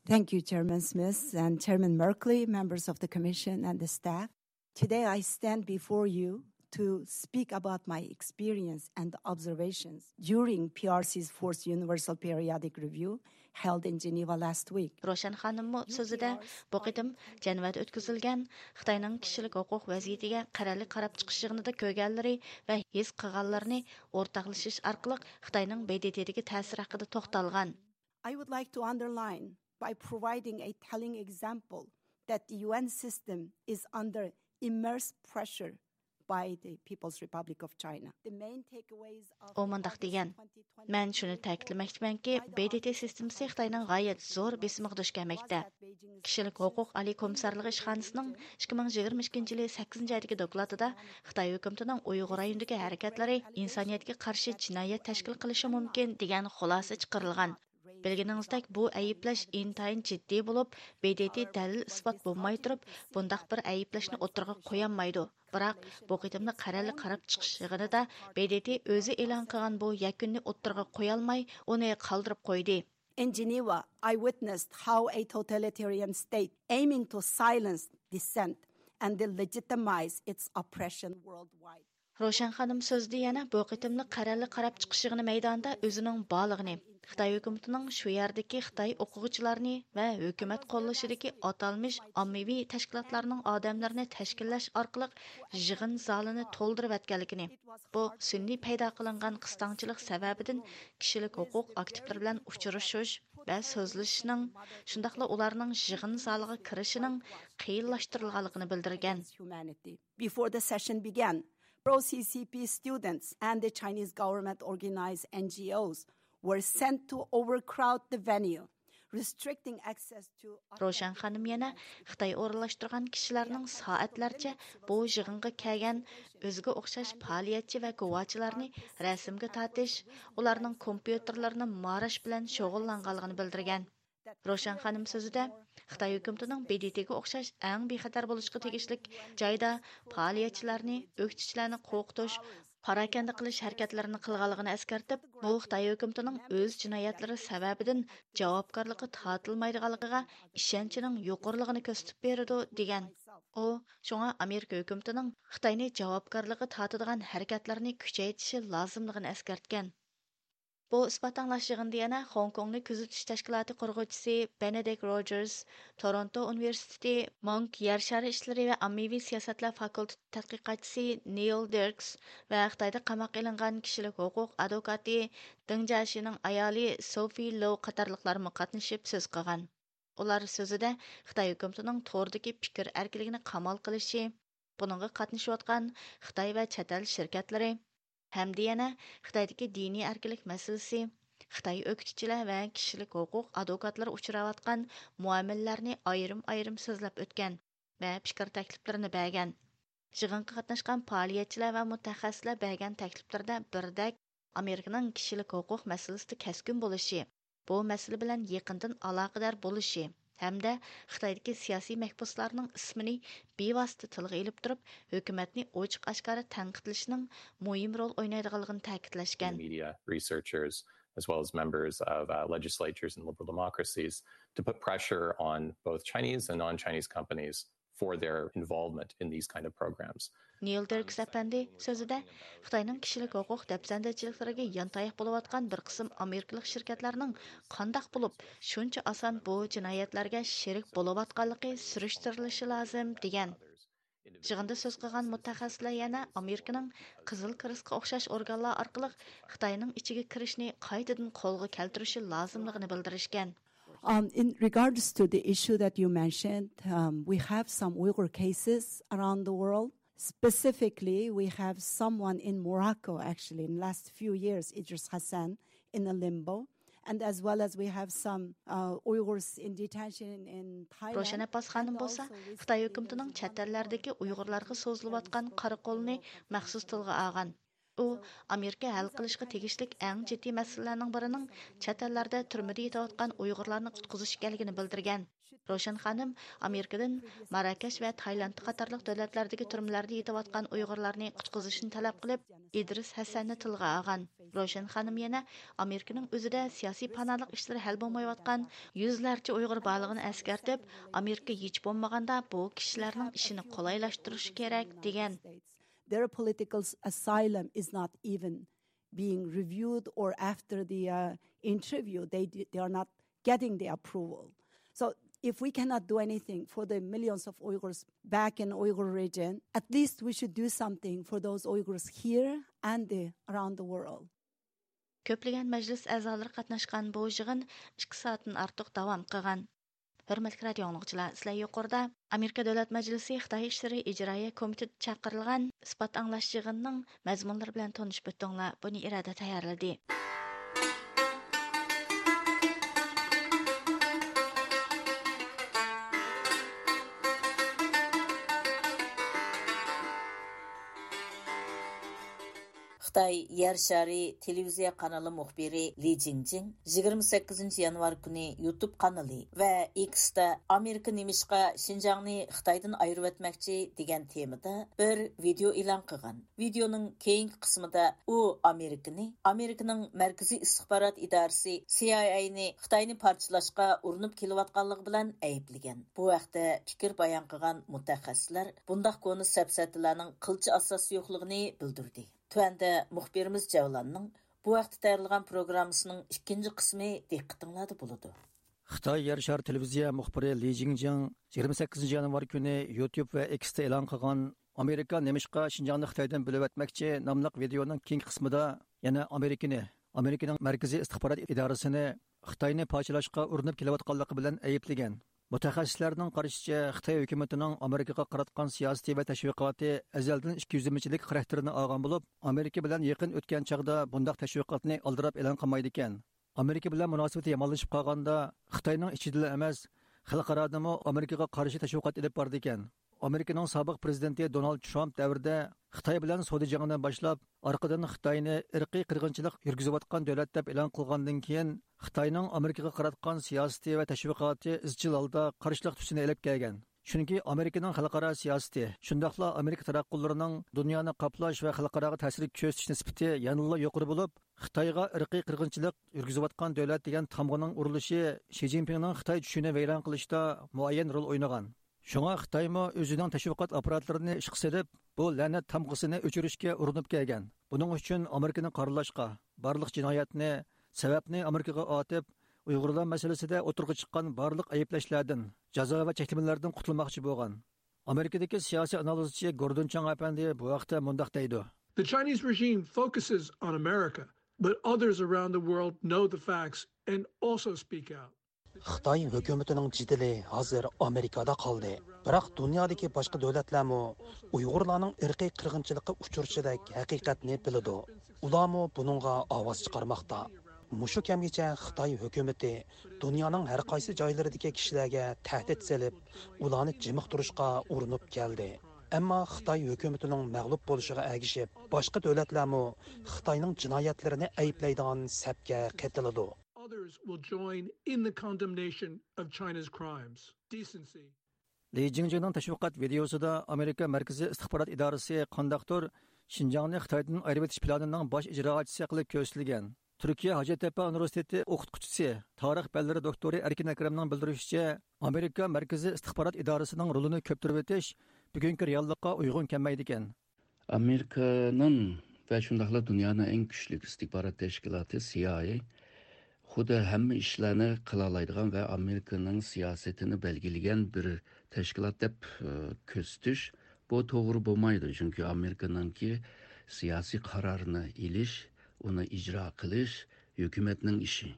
Thank you, Chairman Smith and Chairman Merkley, members of the Commission and the staff. Today I stand before you to speak about my experience and observations during P R C's fourth Universal Periodic Review held in Geneva last week. روشەن خانىممۇ سۆزىدە بۇ قېتىم جەنۋەدە ئۆتكۈزۈلگەن خىتاينىڭ كىشىلىك ھوقۇق ۋەزىيىتىگە قەرەللىك قاراپ چىقىش يىغىنىدا كۆرگەنلىرى ۋە ھېس قىلغانلىرىنى ئورتاقلىشىش ئارقىلىق خىتاينىڭ ب د ت دىكى تەسىرى ھەققىدە توختالغان. I would like to underline by providing a telling example that the U N system is under immense pressure by the People's Republic of China. The main takeaways of ئۇ مۇنداق دېگەن، مەن شۇنى تەكىتلىمەكچىمەنكى، ب د ت سىستېمىسى خىتاينىڭ غايەت زور بېسىمىغا دۇچ كەلمەكتە. كىشىلىك ھوقۇق ئالىي كومىسسارلىقى ئىشخانىسىنىڭ ئىككى مىڭ يىگىرمە ئىككىنچى يىلى سەككىزىنچى ئايدىكى دوكلاتىدا خىتاي ھۆكۈمىتىنىڭ ئۇيغۇر رايونىدىكى ھەرىكەتلىرى ئىنسانىيەتكە قارشى جىنايەت تەشكىل قىلىشى مۇمكىن، دېگەن خۇلاسە چىقىرىلغان. بىلگىنىڭىزدەك، بۇ ئەيىبلەش ئىنتايىن جىددىي بولۇپ، ب د ت دەلىل-ئىسپات بولماي تۇرۇپ، بۇنداق بىر ئەيىبلەشنى ئوتتۇرىغا قويالمايدۇ. بىراق، بۇ قېتىملىق قەرەللىك قاراپ چىقىش يىغىنىدا ب د ت ئۆزى ئېلان قىلغان بۇ يەكۈننى ئوتتۇرىغا قويالماي، ئۇنى قالدۇرۇپ قويدى. In Geneva, I witnessed how a totalitarian state aiming to silence dissent and delegitimize its oppression worldwide. روشەن خانىم سۆزىدە يەنە بۇ قېتىملىق قەرەللىك قاراپ چىقىش يىغىنى مەيدانىدا ئۆزىنىڭ بارلىقىنى، خىتاي ھۆكۈمىتىنىڭ شۇ يەردىكى خىتاي ئوقۇغۇچىلارنى ۋە ھۆكۈمەت قوللىشىدىكى ئاتالمىش ئاممىۋى تەشكىلاتلارنىڭ ئادەملىرىنى تەشكىللەش ئارقىلىق يىغىن زالىنى تولدۇرۇۋەتكەنلىكىنى، بۇ سۈنئىي پەيدا قىلىنغان قىستاڭچىلىق سەۋەبىدىن كىشىلىك ھوقۇق ئاكتىپلىرى بىلەن ئۇچرىشىش ۋە سۆزلىشىشنىڭ، شۇنداقلا ئۇلارنىڭ يىغىن زالىغا كىرىشىنىڭ قىيىنلاشتۇرۇلغانلىقىنى بىلدۈرگەن. Before the session began, pro-C C P students and the Chinese government-organized N G Os were sent to overcrowd the venue, restricting access to روشەن خانىم يەنە خىتاي ئورۇنلاشتۇرغان كىشىلەرنىڭ سائەتلەرچە بۇ يىغىنغا كەلگەن ئۆزىگە ئوخشاش پائالىيەتچى ۋە گۇۋاچىلارنى رەسىمگە تارتىش، ئۇلارنىڭ كومپيۇتېرلىرىنى ماراش بىلەن شۇغۇللانغانلىقىنى بىلدۈرگەن. روشەن خانىم سۆزىدە، خىتاي ھۆكۈمىتىنىڭ ب د ت گە ئوخشاش ئەڭ بىخەتەر بولۇشقا تېگىشلىك جايدا پائالىيەتچىلەرنى، ئۆكتىچىلەرنى قورقۇتۇش، پاراكەندە قىلىش ھەرىكەتلىرىنى قىلغانلىقىنى ئەسكەرتىپ، بۇ خىتاي ھۆكۈمىتىنىڭ ئۆز جىنايەتلىرى سەۋەبىدىن جاۋابكارلىققا تارتىلمايدىغانلىقىغا ئىشەنچىنىڭ يۇقىرىلىقىنى كۆرسىتىپ بېرىدۇ، دېگەن. ئۇ شۇڭا ئامېرىكا ھۆكۈمىتىنىڭ خىتاينى جاۋابكارلىققا تارتىدىغان ھەرىكەتلەرنى كۈچەيتىشى لازىملىقىنى ئەسكەرتكەن. بۇ ئىسپات ئاڭلاش يىغىنىدا يەنە خوڭكوڭنى كۆزىتىش تەشكىلاتى قۇرغۇچىسى بېنېدىكت روجېرس، تورونتو ئۇنىۋېرسىتېتى مونك يەر شارى ئىشلىرى ۋە ئاممىۋى سىياسەتلەر فاكۇلتېتى تەتقىقاتچىسى نېيل دېركس ۋە خىتايدا قاماققا ئېلىنغان كىشىلىك ھوقۇق ئادۋوكاتى دېڭ جياشىنىڭ ئايالى سوفى لوۋ قاتارلىقلارمۇ قاتنىشىپ سۆز قىلغان. ئۇلار سۆزىدە خىتاي ھۆكۈمىتىنىڭ توردىكى پىكىر ئەركىنلىكىنى قامال قىلىشى، بۇنىڭغا قاتنىشىۋاتقان خىتاي ۋە چەت ئەل شىركەتلىرى ھەمدە يەنە خىتايدىكى دىنىي ئەركىنلىك مەسىلىسى، خىتاي ئۆكتىچىلەر ۋە كىشىلىك ھوقۇق ئادۋوكاتلىرى ئۇچراۋاتقان مۇئامىلىلەرنى ئايرىم-ئايرىم سۆزلەپ ئۆتكەن ۋە پىكىر تەكلىپلىرىنى بەرگەن. يىغىنغا قاتناشقان پائالىيەتچىلەر ۋە مۇتەخەسسىسلەر بەرگەن تەكلىپلىرىدە بىردەك ئامېرىكىنىڭ كىشىلىك ھوقۇق مەسىلىسىدە كەسكىن بولۇشى، بۇ مەسىلە بىلەن يېقىندىن ئالاقىدار بولۇشى ھەمدە خىتايدىكى سىياسىي مەھبۇسلارنىڭ ئىسمىنى بىۋاسىتە تىلغا ئېلىپ تۇرۇپ، ھۆكۈمەتنى ئوچۇق-ئاشكارا تەنقىدلىشىنىڭ مۇھىم رول ئوينايدىغانلىقىنى تەكىتلەشكەن. Media researchers, as well as members of uh, legislatures in liberal democracies, to put pressure on both Chinese and non-Chinese companies for their involvement in these kind of programs. نېيل دېركس ئەپەندى سۆزىدە، خىتاينىڭ كىشىلىك ھوقۇق دەپسەندىچىلىكلىرىگە يانتاياق بولۇۋاتقان بىر قىسىم ئامېرىكىلىق شىركەتلەرنىڭ قانداق بولۇپ شۇنچە ئاسان بۇ جىنايەتلەرگە شېرىك بولۇۋاتقانلىقى سۈرۈشتۈرۈلۈشى لازىم، دېگەن. يىغىندا سۆز قىلغان مۇتەخەسسىسلەر يەنە ئامېرىكىنىڭ قىزىل كرېستقا ئوخشاش ئورگانلار ئارقىلىق خىتاينىڭ ئىچىگە كىرىشنى قايتىدىن قولغا كەلتۈرۈشى لازىملىقىنى بىلدۈرۈشكەن. Um, in regards to the issue that you mentioned, um, we have some Uyghur cases around the world. Specifically, we have someone in Morocco, actually, in the last few years, Idris Hassan, in a limbo. And as well as we have some uh, Uyghurs in detention in Thailand. روشەن ئابباس خانىم بولسا خىتاي ھۆكۈمىتىنىڭ چەت ئەللەردىكى ئۇيغۇرلارغا سوزۇلۇۋاتقان قارا قولىنى مەخسۇس تىلغا ئالغان. ئۇ ئامېرىكا ھەل قىلىشقا تېگىشلىك ئەڭ جىددىي مەسىلىلەرنىڭ بىرىنىڭ چەت ئەللەردە تۈرمىدە يېتىۋاتقان ئۇيغۇرلارنى قۇتقۇزۇش ئىكەنلىكىنى بىلدۈرگەن. روشەن خانىم ئامېرىكىدىن ماراكەش ۋە تايلاند قاتارلىق دۆلەتلەردىكى تۈرمىلەردە يېتىۋاتقان ئۇيغۇرلارنى قۇتقۇزۇشنى تەلەپ قىلىپ، ئىدرىس ھەسەننى تىلغا ئالغان. روشەن خانىم يەنە ئامېرىكىنىڭ ئۆزىدە سىياسىي پاناھلىق ئىشلىرى ھەل بولمايۋاتقان يۈزلەرچە ئۇيغۇر بارلىقىنى ئەسكەرتىپ، ئامېرىكا ھېچ بولمىغاندا بۇ كىشىلەرنىڭ ئىشىنى قولايلاشتۇرۇشى كېرەك، دېگەن. Their political asylum is not even being reviewed, or after the uh, interview, they, they are not getting the approval. So if we cannot do anything for the millions of Uyghurs back in Uyghur region, at least we should do something for those Uyghurs here and the, around the world. كۆپلىگەن مەجلىس ئەزالىرى قاتناشقان بۇ يىغىن ئىككى سائەتتىن ئارتۇق داۋام قىلغان. ھۆرمەتلىك رادىئو ئاڭلىغۇچىلار، سىلەر يۇقىرىدا ئامېرىكا دۆلەت مەجلىسى خىتاي ئىشلىرى ئىجرائىيە كومىتېتى چاقىرىلغان ئىسپات ئاڭلاش يىغىنىنىڭ مەزمۇنلىرى بىلەن تونۇشۇپ ئۆتتۈڭلار. بۇنى ئىرادە تەييارلىدى. خىتاي يەر شارى تېلېۋىزىيە قانىلى مۇخبىرى لى جىڭجىڭ يىگىرمە سەككىزىنچى يانۋار كۈنى يۇتۇب قانىلى ۋە ئېكستا «ئامېرىكا نېمىشقا شىنجاڭنى خىتايدىن ئايرىۋەتمەكچى» دېگەن تېمىدا بىر ۋىدېئو ئېلان قىلغان. ۋىدېئونىڭ كېيىنكى قىسمىدا ئۇ ئامېرىكىنى، ئامېرىكىنىڭ مەركىزىي ئىستىخبارات ئىدارىسى سى ئاي ئەينى خىتاينى پارچىلاشقا ئۇرۇنۇپ كېلىۋاتقانلىقى بىلەن ئەيىبلىگەن. بۇ ھەقتە پىكىر بايان قىلغان مۇتەخەسسىسلەر بۇنداق كونا سەپسەتىلەرنىڭ قىلچە ئاساسى يوقلۇقىنى بىلدۈردى. تۆۋەندە مۇخبىرىمىز جەۋلاننىڭ بۇ ھەقتە تەييارلىغان پروگراممىسىنىڭ ئىككىنچى قىسمى دىققىتىڭلاردا بولىدۇ. خىتاي يەر شارى تېلېۋىزىيە مۇخبىرى لى جىڭجىڭ يىگىرمە سەككىزىنچى يانۋار كۈنى يۇتۇب ۋە ئېكستا ئېلان قىلغان «ئامېرىكا نېمىشقا شىنجاڭنى خىتايدىن بۆلۈۋەتمەكچى؟» ناملىق ۋىدېئونىڭ كېيىنكى قىسمىدا يەنە ئامېرىكىنى، ئامېرىكىنىڭ مەركىزىي ئىستىخبارات ئىدارىسىنى خىتاينى پارچىلاشقا ئۇرۇنۇپ كېلىۋاتقانلىقى بىلەن ئەيىبلىگەن. مۇتەخەسسىسلەرنىڭ قارىشىچە، خىتاي ھۆكۈمىتىنىڭ ئامېرىكىغا قاراتقان سىياسىتى ۋە تەشۋىقاتى ئەزەلدىن ئىككىيۈزلىمىچىلىك خاراكتېرىنى ئالغان بولۇپ، ئامېرىكا بىلەن يېقىن ئۆتكەن چاغدا بۇنداق تەشۋىقاتنى ئالدىراپ ئېلان قىلمايدىكەن. ئامېرىكا بىلەن مۇناسىۋىتى يامانلىشىپ قالغاندا، خىتاينىڭ ئىچىدىلا ئەمەس، خەلقئارادىمۇ ئامېرىكىغا قارشى تەشۋىقات ئېلىپ بارىدىكەن. ئامېرىكىنىڭ سابىق پرېزىدېنتى دونالد ترامپ دەۋرىدە خىتاي بىلەن سودا جېڭىنى باشلاپ، ئارقىدىن خىتاينى ئىرقىي قىرغىنچىلىق يۈرگۈزۈۋاتقان دۆلەت دەپ ئېلان قىلغاندىن كېيىن، خىتاينىڭ ئامېرىكىغا قاراتقان سىياسىتى ۋە تەشۋىقاتى ئىزچىل ھالدا قارشىلىق تۈسىنى ئېلىپ كەلگەن. چۈنكى ئامېرىكىنىڭ خەلقئارا سىياسىتى، شۇنداقلا ئامېرىكا تاراتقۇلىرىنىڭ دۇنيانى قاپلاش ۋە خەلقئاراغا تەسىر كۆرسىتىش نىسبىتى يەنىلا يۇقىرى بولۇپ، خىتايغا ئىرقىي قىرغىنچىلىق يۈرگۈزۈۋاتقان دۆلەت دېگەن تامغىنىڭ ئۇرۇلۇشى شى جىنپىڭنىڭ خىتاي چۈشىنى ۋەيران قىلىشتا مۇئەييەن رول ئوينىغان. شۇڭا خىتايمۇ ئۆزىنىڭ تەشۋىقات ئاپپاراتلىرىنى ئىشقا سېلىپ، بۇ لەنەت تامغىسىنى ئۆچۈرۈشكە ئۇرۇنۇپ كەلگەن. بۇنىڭ ئۈچۈن ئامېرىكىنى قارىلاشقا، بارلىق جىنايەتنى، سەۋەبنى ئامېرىكىغا ئاتىپ، ئۇيغۇرلار مەسىلىسىدە ئوتتۇرىغا چىققان بارلىق ئەيىبلەشلەردىن، جازا ۋە چەكلىمىلەردىن قۇتۇلماقچى بولغان. ئامېرىكىدىكى سىياسىي ئانالىزچى گوردون چاڭ ئەپەندى بۇ ھەقتە مۇنداق دەيدۇ. The Chinese regime focuses on America, but others around the world know the facts and also speak out. خىتاي ھۆكۈمىتىنىڭ جېدىلى ھازىر ئامېرىكادا قالدى. بىراق دۇنيادىكى باشقا دۆلەتلەرمۇ ئۇيغۇرلارنىڭ ئىرقىي قىرغىنچىلىققا ئۇچرىشىدەك ھەقىقەتنى بىلىدۇ. ئۇلارمۇ بۇنىڭغا ئاۋاز چىقارماقتا. مۇشۇ كەمگىچە خىتاي ھۆكۈمىتى دۇنيانىڭ ھەر قايسى جايلىرىدىكى كىشىلەرگە تەھدىت سېلىپ، ئۇلارنى جىمىقتۇرۇشقا ئۇرۇنۇپ كەلدى. ئەمما خىتاي ھۆكۈمىتىنىڭ مەغلۇپ بولۇشىغا ئەگىشىپ، باشقا دۆلەتلەرمۇ خىتاينىڭ جىنايەتلىرىنى ئەيىبلەيدىغان سەپكە قېتىلىدۇ. Others will join in the condemnation of China's crimes. Decency. لى جىڭجىڭنىڭ تەشۋىقات ۋىدېئوسىدا ئامېرىكا مەركىزىي ئىستىخبارات ئىدارىسى قانداقتۇر شىنجاڭنى خىتايدىن ئايرىۋېتىش پىلانىنىڭ باش ئىجراچىسى قىلىپ كۆرسىتىلگەن. تۈركىيە ھاجەتتەپە ئۇنىۋېرسىتېتى ئوقۇتقۇچىسى، تارىخ پەنلىرى دوكتورى ئەركىن ئەكرەمنىڭ بىلدۈرۈشىچە، ئامېرىكا مەركىزىي ئىستىخبارات ئىدارىسىنىڭ رولىنى كۆپتۈرۈۋېتىش بۈگۈنكى رېئاللىققا ئۇيغۇن كەلمەيدىكەن. ئامېرىكىنىڭ ۋە شۇنداقلا دۇنيانىڭ ئەڭ كۈچلۈك ئىستىخبارات تەشكىلاتى سى ئاي ئەي خۇددى ھەممە ئىشلارنى قىلالايدىغان ۋە ئامېرىكىنىڭ سىياسىتىنى بەلگىلىگەن بىر تەشكىلات دەپ، ئى، كۆرسىتىش، بۇ توغرا بولمايدۇ. چۈنكى ئامېرىكىنىڭكى سىياسىي قارارنى ئېلىش، ئۇنى ئىجرا قىلىش ھۆكۈمەتنىڭ ئىشى.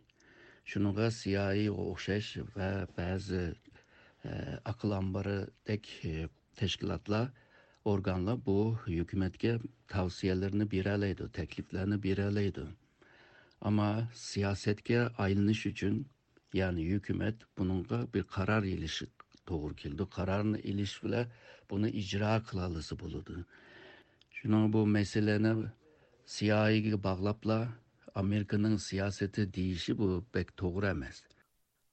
شۇنىڭغا سى ئاي ئەيغا ئوخشاش ۋە بەزى، ئى، ئەقىل ئامبىرىدەك، ئى، تەشكىلاتلار، ئورگانلار بۇ ھۆكۈمەتكە تەۋسىيەلىرىنى بېرەلەيدۇ، تەكلىپلەرنى بېرەلەيدۇ. ئەمما سىياسەتكە ئايلىنىش ئۈچۈن، يەنى ھۆكۈمەت بۇنىڭغا بىر قارار ئېلىشى توغرا كېلىدۇ. قارارنى ئېلىش بىلەن بۇنى ئىجرا قىلالىسا بولىدۇ. شۇنىڭ بۇ مەسىلىنى سى ئاي ئەيگە باغلاپلا ئامېرىكىنىڭ سىياسىتى دېيىشى بۇ بەك توغرا ئەمەس.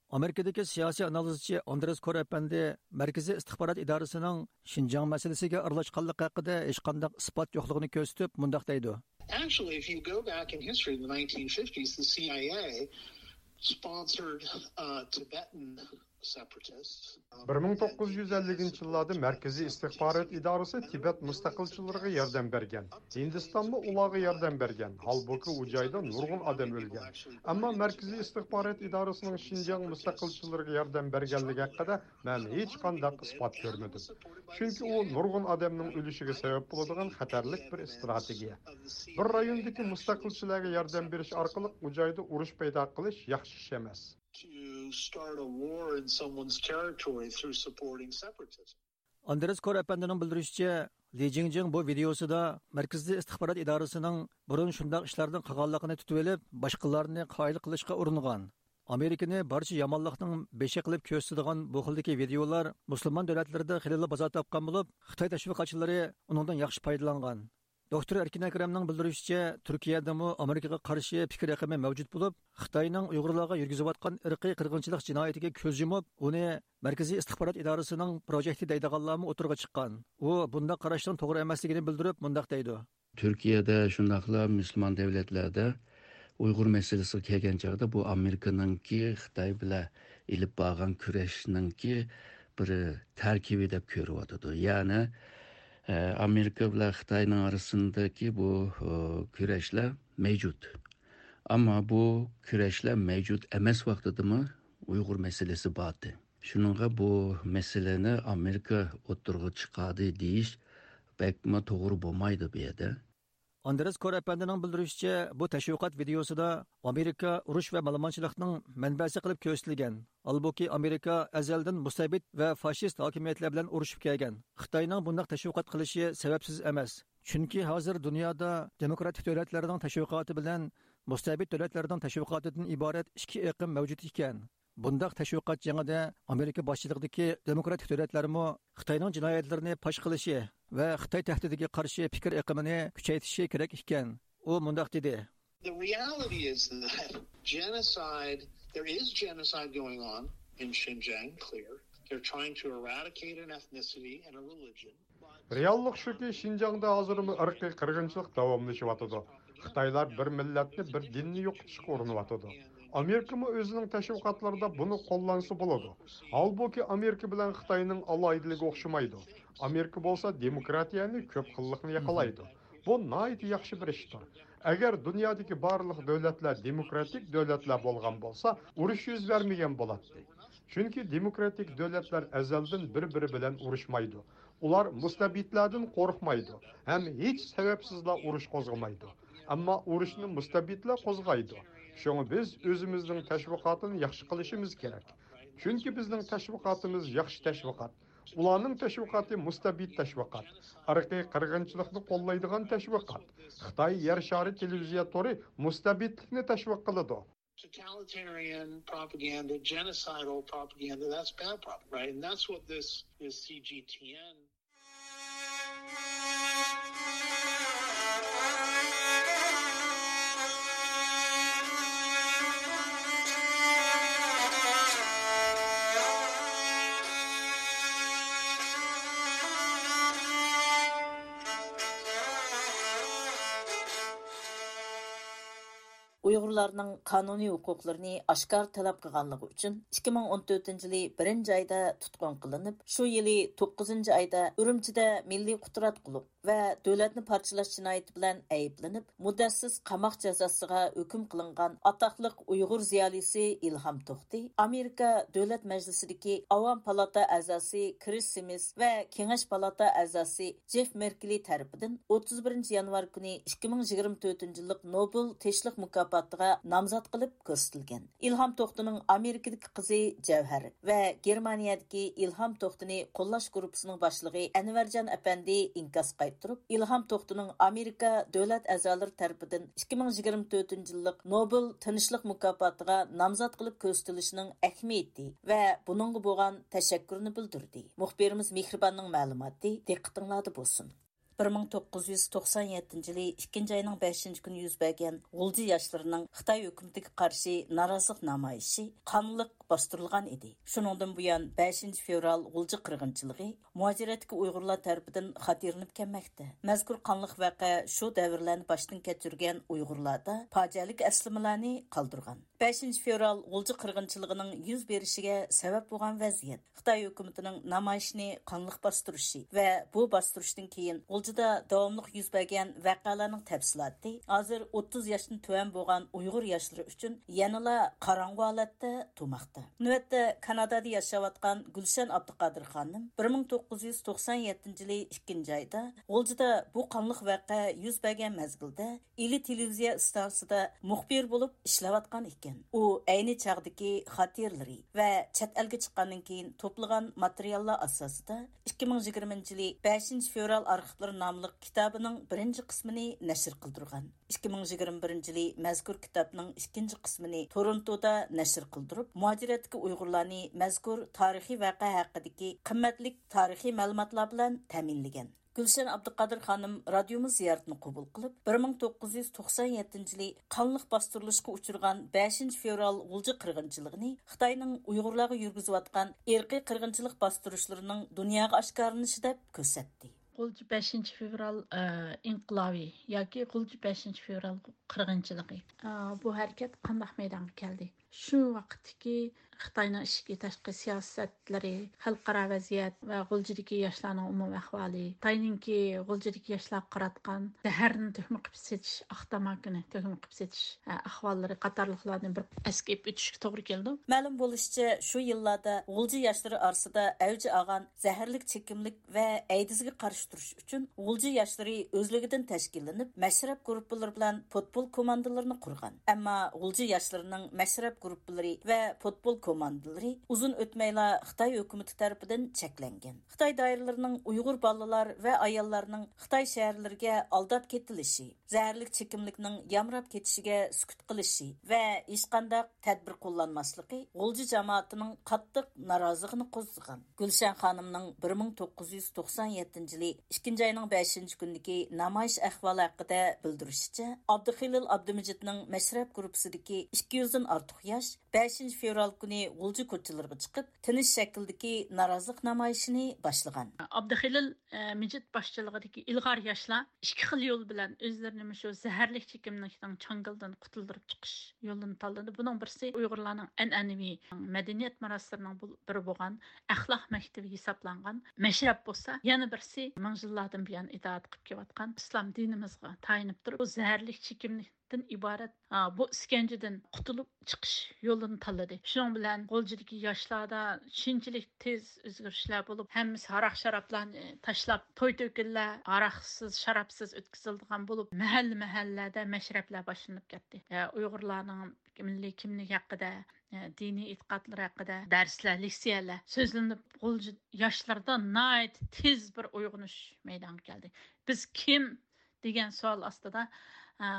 ئامېرىكىدىكى سىياسىي ئانالىزچى ئاندرېس كور ئەپەندى مەركىزىي ئىستىخبارات ئىدارىسىنىڭ شىنجاڭ مەسىلىسىگە ئارىلاشقانلىقى ھەققىدە ھېچقانداق ئىسپات يوقلۇقىنى كۆرسىتىپ مۇنداق دەيدۇ. Actually, if you go back in history, in the nineteen fifties, the C I A sponsored, uh, Tibetan separatists. بىر مىڭ توققۇز يۈز ئەللىكىنچى يىللاردا مەركىزىي ئىستىخبارات ئىدارىسى تىبەت مۇستەقىلچىلىرىغا ياردەم بەرگەن. ھىندىستانمۇ ئۇلارغا ياردەم بەرگەن. ھالبۇكى، ئۇ جايدا نۇرغۇن ئادەم ئۆلگەن. ئەمما مەركىزىي ئىستىخبارات ئىدارىسىنىڭ شىنجاڭ مۇستەقىلچىلىرىغا ياردەم بەرگەنلىكى ھەققىدە مەن ھېچقانداق ئىسپات كۆرمىدىم. چۈنكى ئۇ نۇرغۇن ئادەمنىڭ ئۆلۈشىگە سەۋەب بولىدىغان خەتەرلىك بىر ئىستراتېگىيە. بىر رايوندىكى مۇستەقىلچىلەرگە ياردەم بېرىش ئارقىلىق ئۇ جايدا ئۇرۇش پەيدا قىلىش ياخشى ئىش ئەمەس. To start a war in someone's territory through supporting separatism. ئاندرېس كور ئەپەندىنىڭ بىلدۈرۈشىچە، لى جىڭجىڭ بۇ ۋىدېئوسىدا مەركىزىي ئىستىخبارات ئىدارىسىنىڭ بۇرۇن شۇنداق ئىشلارنى قىلغانلىقىنى تۇتۇۋېلىپ، باشقىلارنى قايىل قىلىشقا ئۇرۇنغان. ئامېرىكىنى بارچە يامانلىقنىڭ بېشى قىلىپ كۆرسىتىدىغان بۇ خىلدىكى ۋىدېئولار مۇسۇلمان دۆلەتلىرىدە خېلىلا بازار تاپقان بولۇپ، خىتاي تەشۋىقاتچىلىرى ئۇنىڭدىن ياخشى پايدىلانغان. دوكتور ئەركىن ئەكرەمنىڭ بىلدۈرۈشىچە، تۈركىيەدىمۇ ئامېرىكىغا قارشى پىكىر ئېقىمى مەۋجۇت بولۇپ، خىتاينىڭ ئۇيغۇرلارغا يۈرگۈزۈۋاتقان ئىرقىي قىرغىنچىلىق جىنايىتىگە كۆز يۇمۇپ، ئۇنى مەركىزىي ئىستىخبارات ئىدارىسىنىڭ پروژېكتى دەيدىغانلارمۇ ئوتتۇرىغا چىققان. ئۇ بۇنداق قاراشنىڭ توغرا ئەمەسلىكىنى بىلدۈرۈپ، مۇنداق دەيدۇ. تۈركىيەدە، شۇنداقلا مۇسۇلمان دۆلەتلەردە ئۇيغۇر مەسىلىسىگە كەلگەن چاغدا، بۇ ئامېرىكىنىڭكى خىتاي بىلەن ئېلىپ بارغان كۈرەشنىڭكى بىر تەركىبى دەپ كۆرۈۋاتىدۇ. يەنى، ئە، ئامېرىكا بىلەن خىتاينىڭ ئارىسىندىكى بۇ، ئۇ، كۈرەشلەر مەۋجۇت. ئەمما بۇ كۈرەشلەر مەۋجۇت ئەمەس ۋاقتىدىمۇ ئۇيغۇر مەسىلىسى بار ئىدى. شۇنىڭغا بۇ مەسىلىنى ئامېرىكا ئوتتۇرىغا چىقاردى دېيىش بەكمۇ توغرا بولمايدۇ بۇ يەردە. ئاندرېس كور ئەپەندىنىڭ بىلدۈرۈشىچە، بۇ تەشۋىقات ۋىدېئوسىدا ئامېرىكا ئۇرۇش ۋە مالىمانچىلىقنىڭ مەنبەسى قىلىپ كۆرسىتىلگەن. ھالبۇكى، ئامېرىكا ئەزەلدىن مۇستەبىت ۋە فاشىست ھاكىمىيەتلەر بىلەن ئۇرۇشۇپ كەلگەن. خىتاينىڭ بۇنداق تەشۋىقات قىلىشى سەۋەبسىز ئەمەس. چۈنكى ھازىر دۇنيادا دېموكراتىك دۆلەتلەرنىڭ تەشۋىقاتى بىلەن مۇستەبىت دۆلەتلەرنىڭ تەشۋىقاتىدىن ئىبارەت ئىككى ئېقىم مەۋجۇت ئىكەن. بۇنداق تەشۋىقات جېڭىدە ئامېرىكا باشچىلىقىدىكى دېموكراتىك دۆلەتلەرمۇ خىتاينىڭ جىنايەتلىرىنى پاش قىلىشى ۋە خىتاي تەھدىتىگە قارشى پىكىر ئېقىمىنى كۈچەيتىشى كېرەك ئىكەن. ئۇ مۇنداق دېدى. The reality is that genocide, there is genocide going on in Xinjiang, clear. They're trying to eradicate an ethnicity and a religion. رېئاللىق شۇكى، شىنجاڭدا ھازىرمۇ ئىرقىي قىرغىنچىلىق داۋاملىشىۋاتىدۇ. خىتايلار بىر مىللەتنى، بىر دىننى يوقىتىشقا ئۇرۇنۇۋاتىدۇ. ئامېرىكىمۇ ئۆزىنىڭ تەشۋىقاتلىرىدا بۇنى قوللانسا بولىدۇ. ھالبۇكى، ئامېرىكا بىلەن خىتاينىڭ ئالاھىدىلىكى ئوخشىمايدۇ. ئامېرىكا بولسا دېموكراتىيەنى، كۆپ خىللىقنى ياقلايدۇ. بۇ ناھايىتى ياخشى بىر ئىشتۇر. ئەگەر دۇنيادىكى بارلىق دۆلەتلەر دېموكراتىك دۆلەتلەر بولغان بولسا، ئۇرۇش يۈز بەرمىگەن بولاتتى. چۈنكى دېموكراتىك دۆلەتلەر ئەزەلدىن بىر-بىرى بىلەن ئۇرۇشمايدۇ. ئۇلار مۇستەبىتلەردىن قورقمايدۇ ھەم ھېچ سەۋەبسىزلا ئۇرۇش قوزغىمايدۇ. ئەمما ئۇرۇشنى مۇستەبىتلەر قوزغايدۇ. شۇڭا بىز ئۆزىمىزنىڭ تەشۋىقاتىنى ياخشى قىلىشىمىز كېرەك. چۈنكى بىزنىڭ تەشۋىقاتىمىز ياخشى تەشۋىقات. ئۇلارنىڭ تەشۋىقاتى مۇستەبىت تەشۋىقات. ئىرقىي قىرغىنچىلىقنى قوللايدىغان تەشۋىقات. خىتاي يەر شارى تېلېۋىزىيە تورى مۇستەبىتلىكنى تەشۋىق قىلىدۇ. Totalitarian propaganda, genocidal propaganda, that's bad propaganda, right? And that's what this, this C G T N. ئۇيغۇرلارنىڭ قانۇنىي ھوقۇقلىرىنى ئاشكارا تەلەپ قىلغانلىقى ئۈچۈن، ئىككى مىڭ ئون تۆتىنچى يىلى بىرىنچى ئايدا تۇتقۇن قىلىنىپ، شۇ يىلى توققۇزىنچى ئايدا ئۈرۈمچىدە مىللىي قۇتراتقۇلۇق ۋە دۆلەتنى پارچىلاش جىنايىتى بىلەن ئەيىبلىنىپ، مۇددەتسىز قاماق جازاسىغا ھۆكۈم قىلىنغان ئاتاقلىق ئۇيغۇر زىيالىيسى ئىلھام توختى، ئامېرىكا دۆلەت مەجلىسىدىكى ئاۋام پالاتا ئەزاسى كرىس سىمىس ۋە كېڭەش پالاتا ئەزاسى جېف مېركلى تەرىپىدىن ئوتتۇز بىرىنچى يانۋار كۈنى ئىككى مىڭ يىگىرمە تۆتىنچى يىللىق نوبېل تىنچلىق مۇكاپاتىغا نامزات قىلىپ كۆرسىتىلگەن. ئىلھام توختىنىڭ ئامېرىكىدىكى قىزى جەۋھەر ۋە گېرمانىيەدىكى ئىلھام توختىنى قوللاش گۇرۇپپىسىنىڭ باشلىقى ئەنۋەرجان ئەپەندى ئىنكاس قايتۇرۇپ، ئىلھام توختىنىڭ ئامېرىكا دۆلەت ئەزالىرى تەرىپىدىن ئىككى مىڭ يىگىرمە تۆتىنچى يىللىق نوبېل تىنچلىق مۇكاپاتىغا نامزات قىلىپ كۆرسىتىلىشىنىڭ ئەھمىيىتى ۋە بۇنىڭغا بولغان تەشەككۈرىنى بىلدۈردى. مۇخبىرىمىز مېھرىباننىڭ مەلۇماتى دىققىتىڭلاردا بولسۇن. بىر مىڭ توققۇز يۈز توقسان يەتتىنچى يىلى ئىككىنچى ئاينىڭ بەشىنچى كۈنى يۈز بەرگەن غۇلجا ياشلىرىنىڭ خىتاي ھۆكۈمىتىگە قارشى نارازىلىق نامايىشى قانلىق باستۇرۇلغان ئىدى. شۇنىڭدىن بۇيان، بەشىنچى فېۋرال غۇلجا قىرغىنچىلىقى مۇھاجىرەتتىكى ئۇيغۇرلار تەرىپىدىن خاتىرىلىنىپ كەلمەكتە. مەزكۇر قانلىق ۋەقە شۇ دەۋرلەرنى باشتىن كەچۈرگەن ئۇيغۇرلاردا پاجىئەلىك ئەسلىمىلەرنى قالدۇرغان. بەشىنچى فېۋرال غۇلجا قىرغىنچىلىقىنىڭ يۈز بېرىشىگە سەۋەب بولغان ۋەزىيەت، خىتاي ھۆكۈمىتىنىڭ نامايىشنى قانلىق باستۇرۇشى ۋە بۇ باستۇرۇشتىن كېيىن غۇلجىدا داۋاملىق يۈز بەرگەن ۋەقەلەرنىڭ تەپسىلاتى ھازىر ئوتتۇز ياشتىن تۆۋەن بولغان ئۇيغۇر ياشلىرى ئۈچۈن يەنىلا قاراڭغۇ ھالەتتە تۇرماقتا. نۆۋەتتە كانادادا ياشاۋاتقان گۈلشەن ئابدۇقادىر خانىم بىر مىڭ توققۇز يۈز توقسان يەتتىنچى يىلى ئىككىنچى ئايدا غۇلجىدا بۇ قانلىق ۋەقە يۈز بەرگەن مەزگىلدە ئىلى تېلېۋىزىيە ئىستانسىسىدا مۇخبىر بولۇپ ئىشلەۋاتقان ئىكەن. ئۇ ئەينى چاغدىكى خاتىرىلىرى ۋە چەت ئەلگە چىققاندىن كېيىن توپلىغان ماتېرىياللار ئاساسىدا ئىككى مىڭ يىگىرمىنچى يىلى بەشىنچى فېۋرال ئارخىپلىرى ناملىق كىتابىنىڭ بىرىنچى قىسمىنى نەشر قىلدۇرغان. ئىككى مىڭ يىگىرمە بىرىنچى يىلى مەزكۇر كىتابنىڭ ئىككىنچى قىسمىنى تورونتودا نەشر قىلدۇرۇپ، مۇھاجىرەتتىكى ئۇيغۇرلارنى مەزكۇر تارىخىي ۋەقە ھەققىدىكى قىممەتلىك تارىخىي مەلۇماتلار بىلەن تەمىنلىگەن. گۈلشەن ئابدۇقادىر خانىم رادىيومىز زىيارىتىنى قوبۇل قىلىپ، بىر مىڭ توققۇز يۈز توقسان يەتتىنچى يىلى قانلىق باستۇرۇلۇشقا ئۇچرىغان بەشىنچى فېۋرال غۇلجا قىرغىنچىلىقىنى خىتاينىڭ ئۇيغۇرلارغا يۈرگۈزۈۋاتقان ئىرقىي قىرغىنچىلىق باستۇرۇشلىرىنىڭ دۇنياغا ئاشكارىلىنىشى دەپ كۆرسەتتى. غۇلجا بەشىنچى فېۋرال، ئە، ئىنقىلابى ياكى غۇلجا بەشىنچى فېۋرال قىرغىنچىلىقى. ئە، بۇ ھەرىكەت قانداق مەيدانغا كەلدى؟ شۇ ۋاقىتتىكى خىتاينىڭ ئىچكى تاشقى سىياسەتلىرى، خەلقئارا ۋەزىيەت ۋە غۇلجىدىكى ياشلارنىڭ ئومۇمىي ئەھۋالى، خىتاينىڭكى غۇلجىدىكى ياشلارغا قاراتقان زەھەرنى تۆكمە قىلىپ سېتىش، ئاق تاماكىنى تۆكمە قىلىپ سېتىش، ئە، ئەھۋاللىرى قاتارلىقلارنى بىر ئەسكە ئېلىپ ئۆتۈشكە توغرا كېلىدۇ. مەلۇم بولۇشىچە، شۇ يىللاردا غۇلجا ياشلىرى ئارىسىدا ئەۋج ئالغان زەھەرلىك چېكىملىك ۋە ئەيدىزگە قارشى تۇرۇش ئۈچۈن غۇلجا ياشلىرى ئۆزلۈكىدىن تەشكىللىنىپ، مەشرەپ گۇرۇپپىلىرى بىلەن پۇتبول كوماندىلىرىنى قۇرغان. ئەمما غۇلجا ياشلىرىنىڭ مەشرەپ گۇرۇپپىلىرى ۋە پۇتبول كوماندىلىرى ئۇزۇن ئۆتمەيلا خىتاي ھۆكۈمىتى تەرىپىدىن چەكلەنگەن. خىتاي دائىرىلىرىنىڭ ئۇيغۇر بالىلار ۋە ئاياللارنىڭ خىتاي شەھەرلىرىگە ئالداپ كېتىلىشى، زەھەرلىك چېكىملىكنىڭ يامراپ كېتىشىگە سۈكۈت قىلىشى ۋە ھېچقانداق تەدبىر قوللانماسلىقى غۇلجا جامائىتىنىڭ قاتتىق نارازىلىقىنى قوزغىغان. گۈلشەن خانىمنىڭ بىر مىڭ توققۇز يۈز توقسان يەتتىنچى يىلى ئىككىنچى ئاينىڭ بەشىنچى كۈنىدىكى نامايىش ئەھۋالى ھەققىدە بىلدۈرۈشىچە، ئابدۇخېلىل ئابدۇمىجىتنىڭ مەشرەپ گۇرۇپپىسىدىكى ئىككى يۈزدىن ئارتۇق ياش بەشىنچى فېۋرال كۈنى غۇلجا كوچىلىرىغا چىقىپ، تىنچ شەكىلدىكى نارازىلىق نامايىشىنى باشلىغان. ئابدۇخېلىل، ئە، مىجىت باشچىلىقىدىكى ئىلغار ياشلار ئىككى خىل يول بىلەن ئۆزلىرىنى مۇشۇ زەھەرلىك چېكىملىكنىڭ چاڭگىلىدىن قۇتۇلدۇرۇپ چىقىش يولىنى تاللىدى. بۇنىڭ بىرسى ئۇيغۇرلارنىڭ ئەنئەنىۋى مەدەنىيەت مىراسلىرىنىڭ بۇ-، بىرى بولغان ئەخلاق مەكتىپى ھېسابلانغان مەشرەپ بولسا، يەنە بىرسى مىڭ يىللاردىن بۇيان ئىتائەت قىلىپ كېلىۋاتقان ئىسلام دىنىمىزغا تايىنىپ تۇرۇپ، بۇ زەھەرلىك چېكىملىكتىن ئىبارەت، ئا، بۇ ئىسكەنجىدىن قۇتۇلۇپ چىقىش يولىنى تاللىدى. شۇنىڭ بىلەن غۇلجىدىكى ياشلاردا شۇنچىلىك تېز ئۆزگىرىشلەر بولۇپ، ھەممىسى ھاراق-شارابلارنى تاشلاپ، توي-تۆكۈنلەر ھاراقسىز، شارابسىز ئۆتكۈزۈلىدىغان بولۇپ، مەھەللە-مەھەللىلەردە مەشرەپلەر باشلىنىپ كەتتى. ئە، ئۇيغۇرلارنىڭ مىللىي كىملىكى ھەققىدە، ئە، دىنىي ئېتىقادلىرى ھەققىدە دەرسلەر، لېكسىيەلەر سۆزلىنىپ، غۇلجا ياشلىرىدا ناھايىتى تېز بىر ئويغىنىش مەيدانغا كەلدى. بىز كىم دېگەن سوئال ئاستىدا، ئە،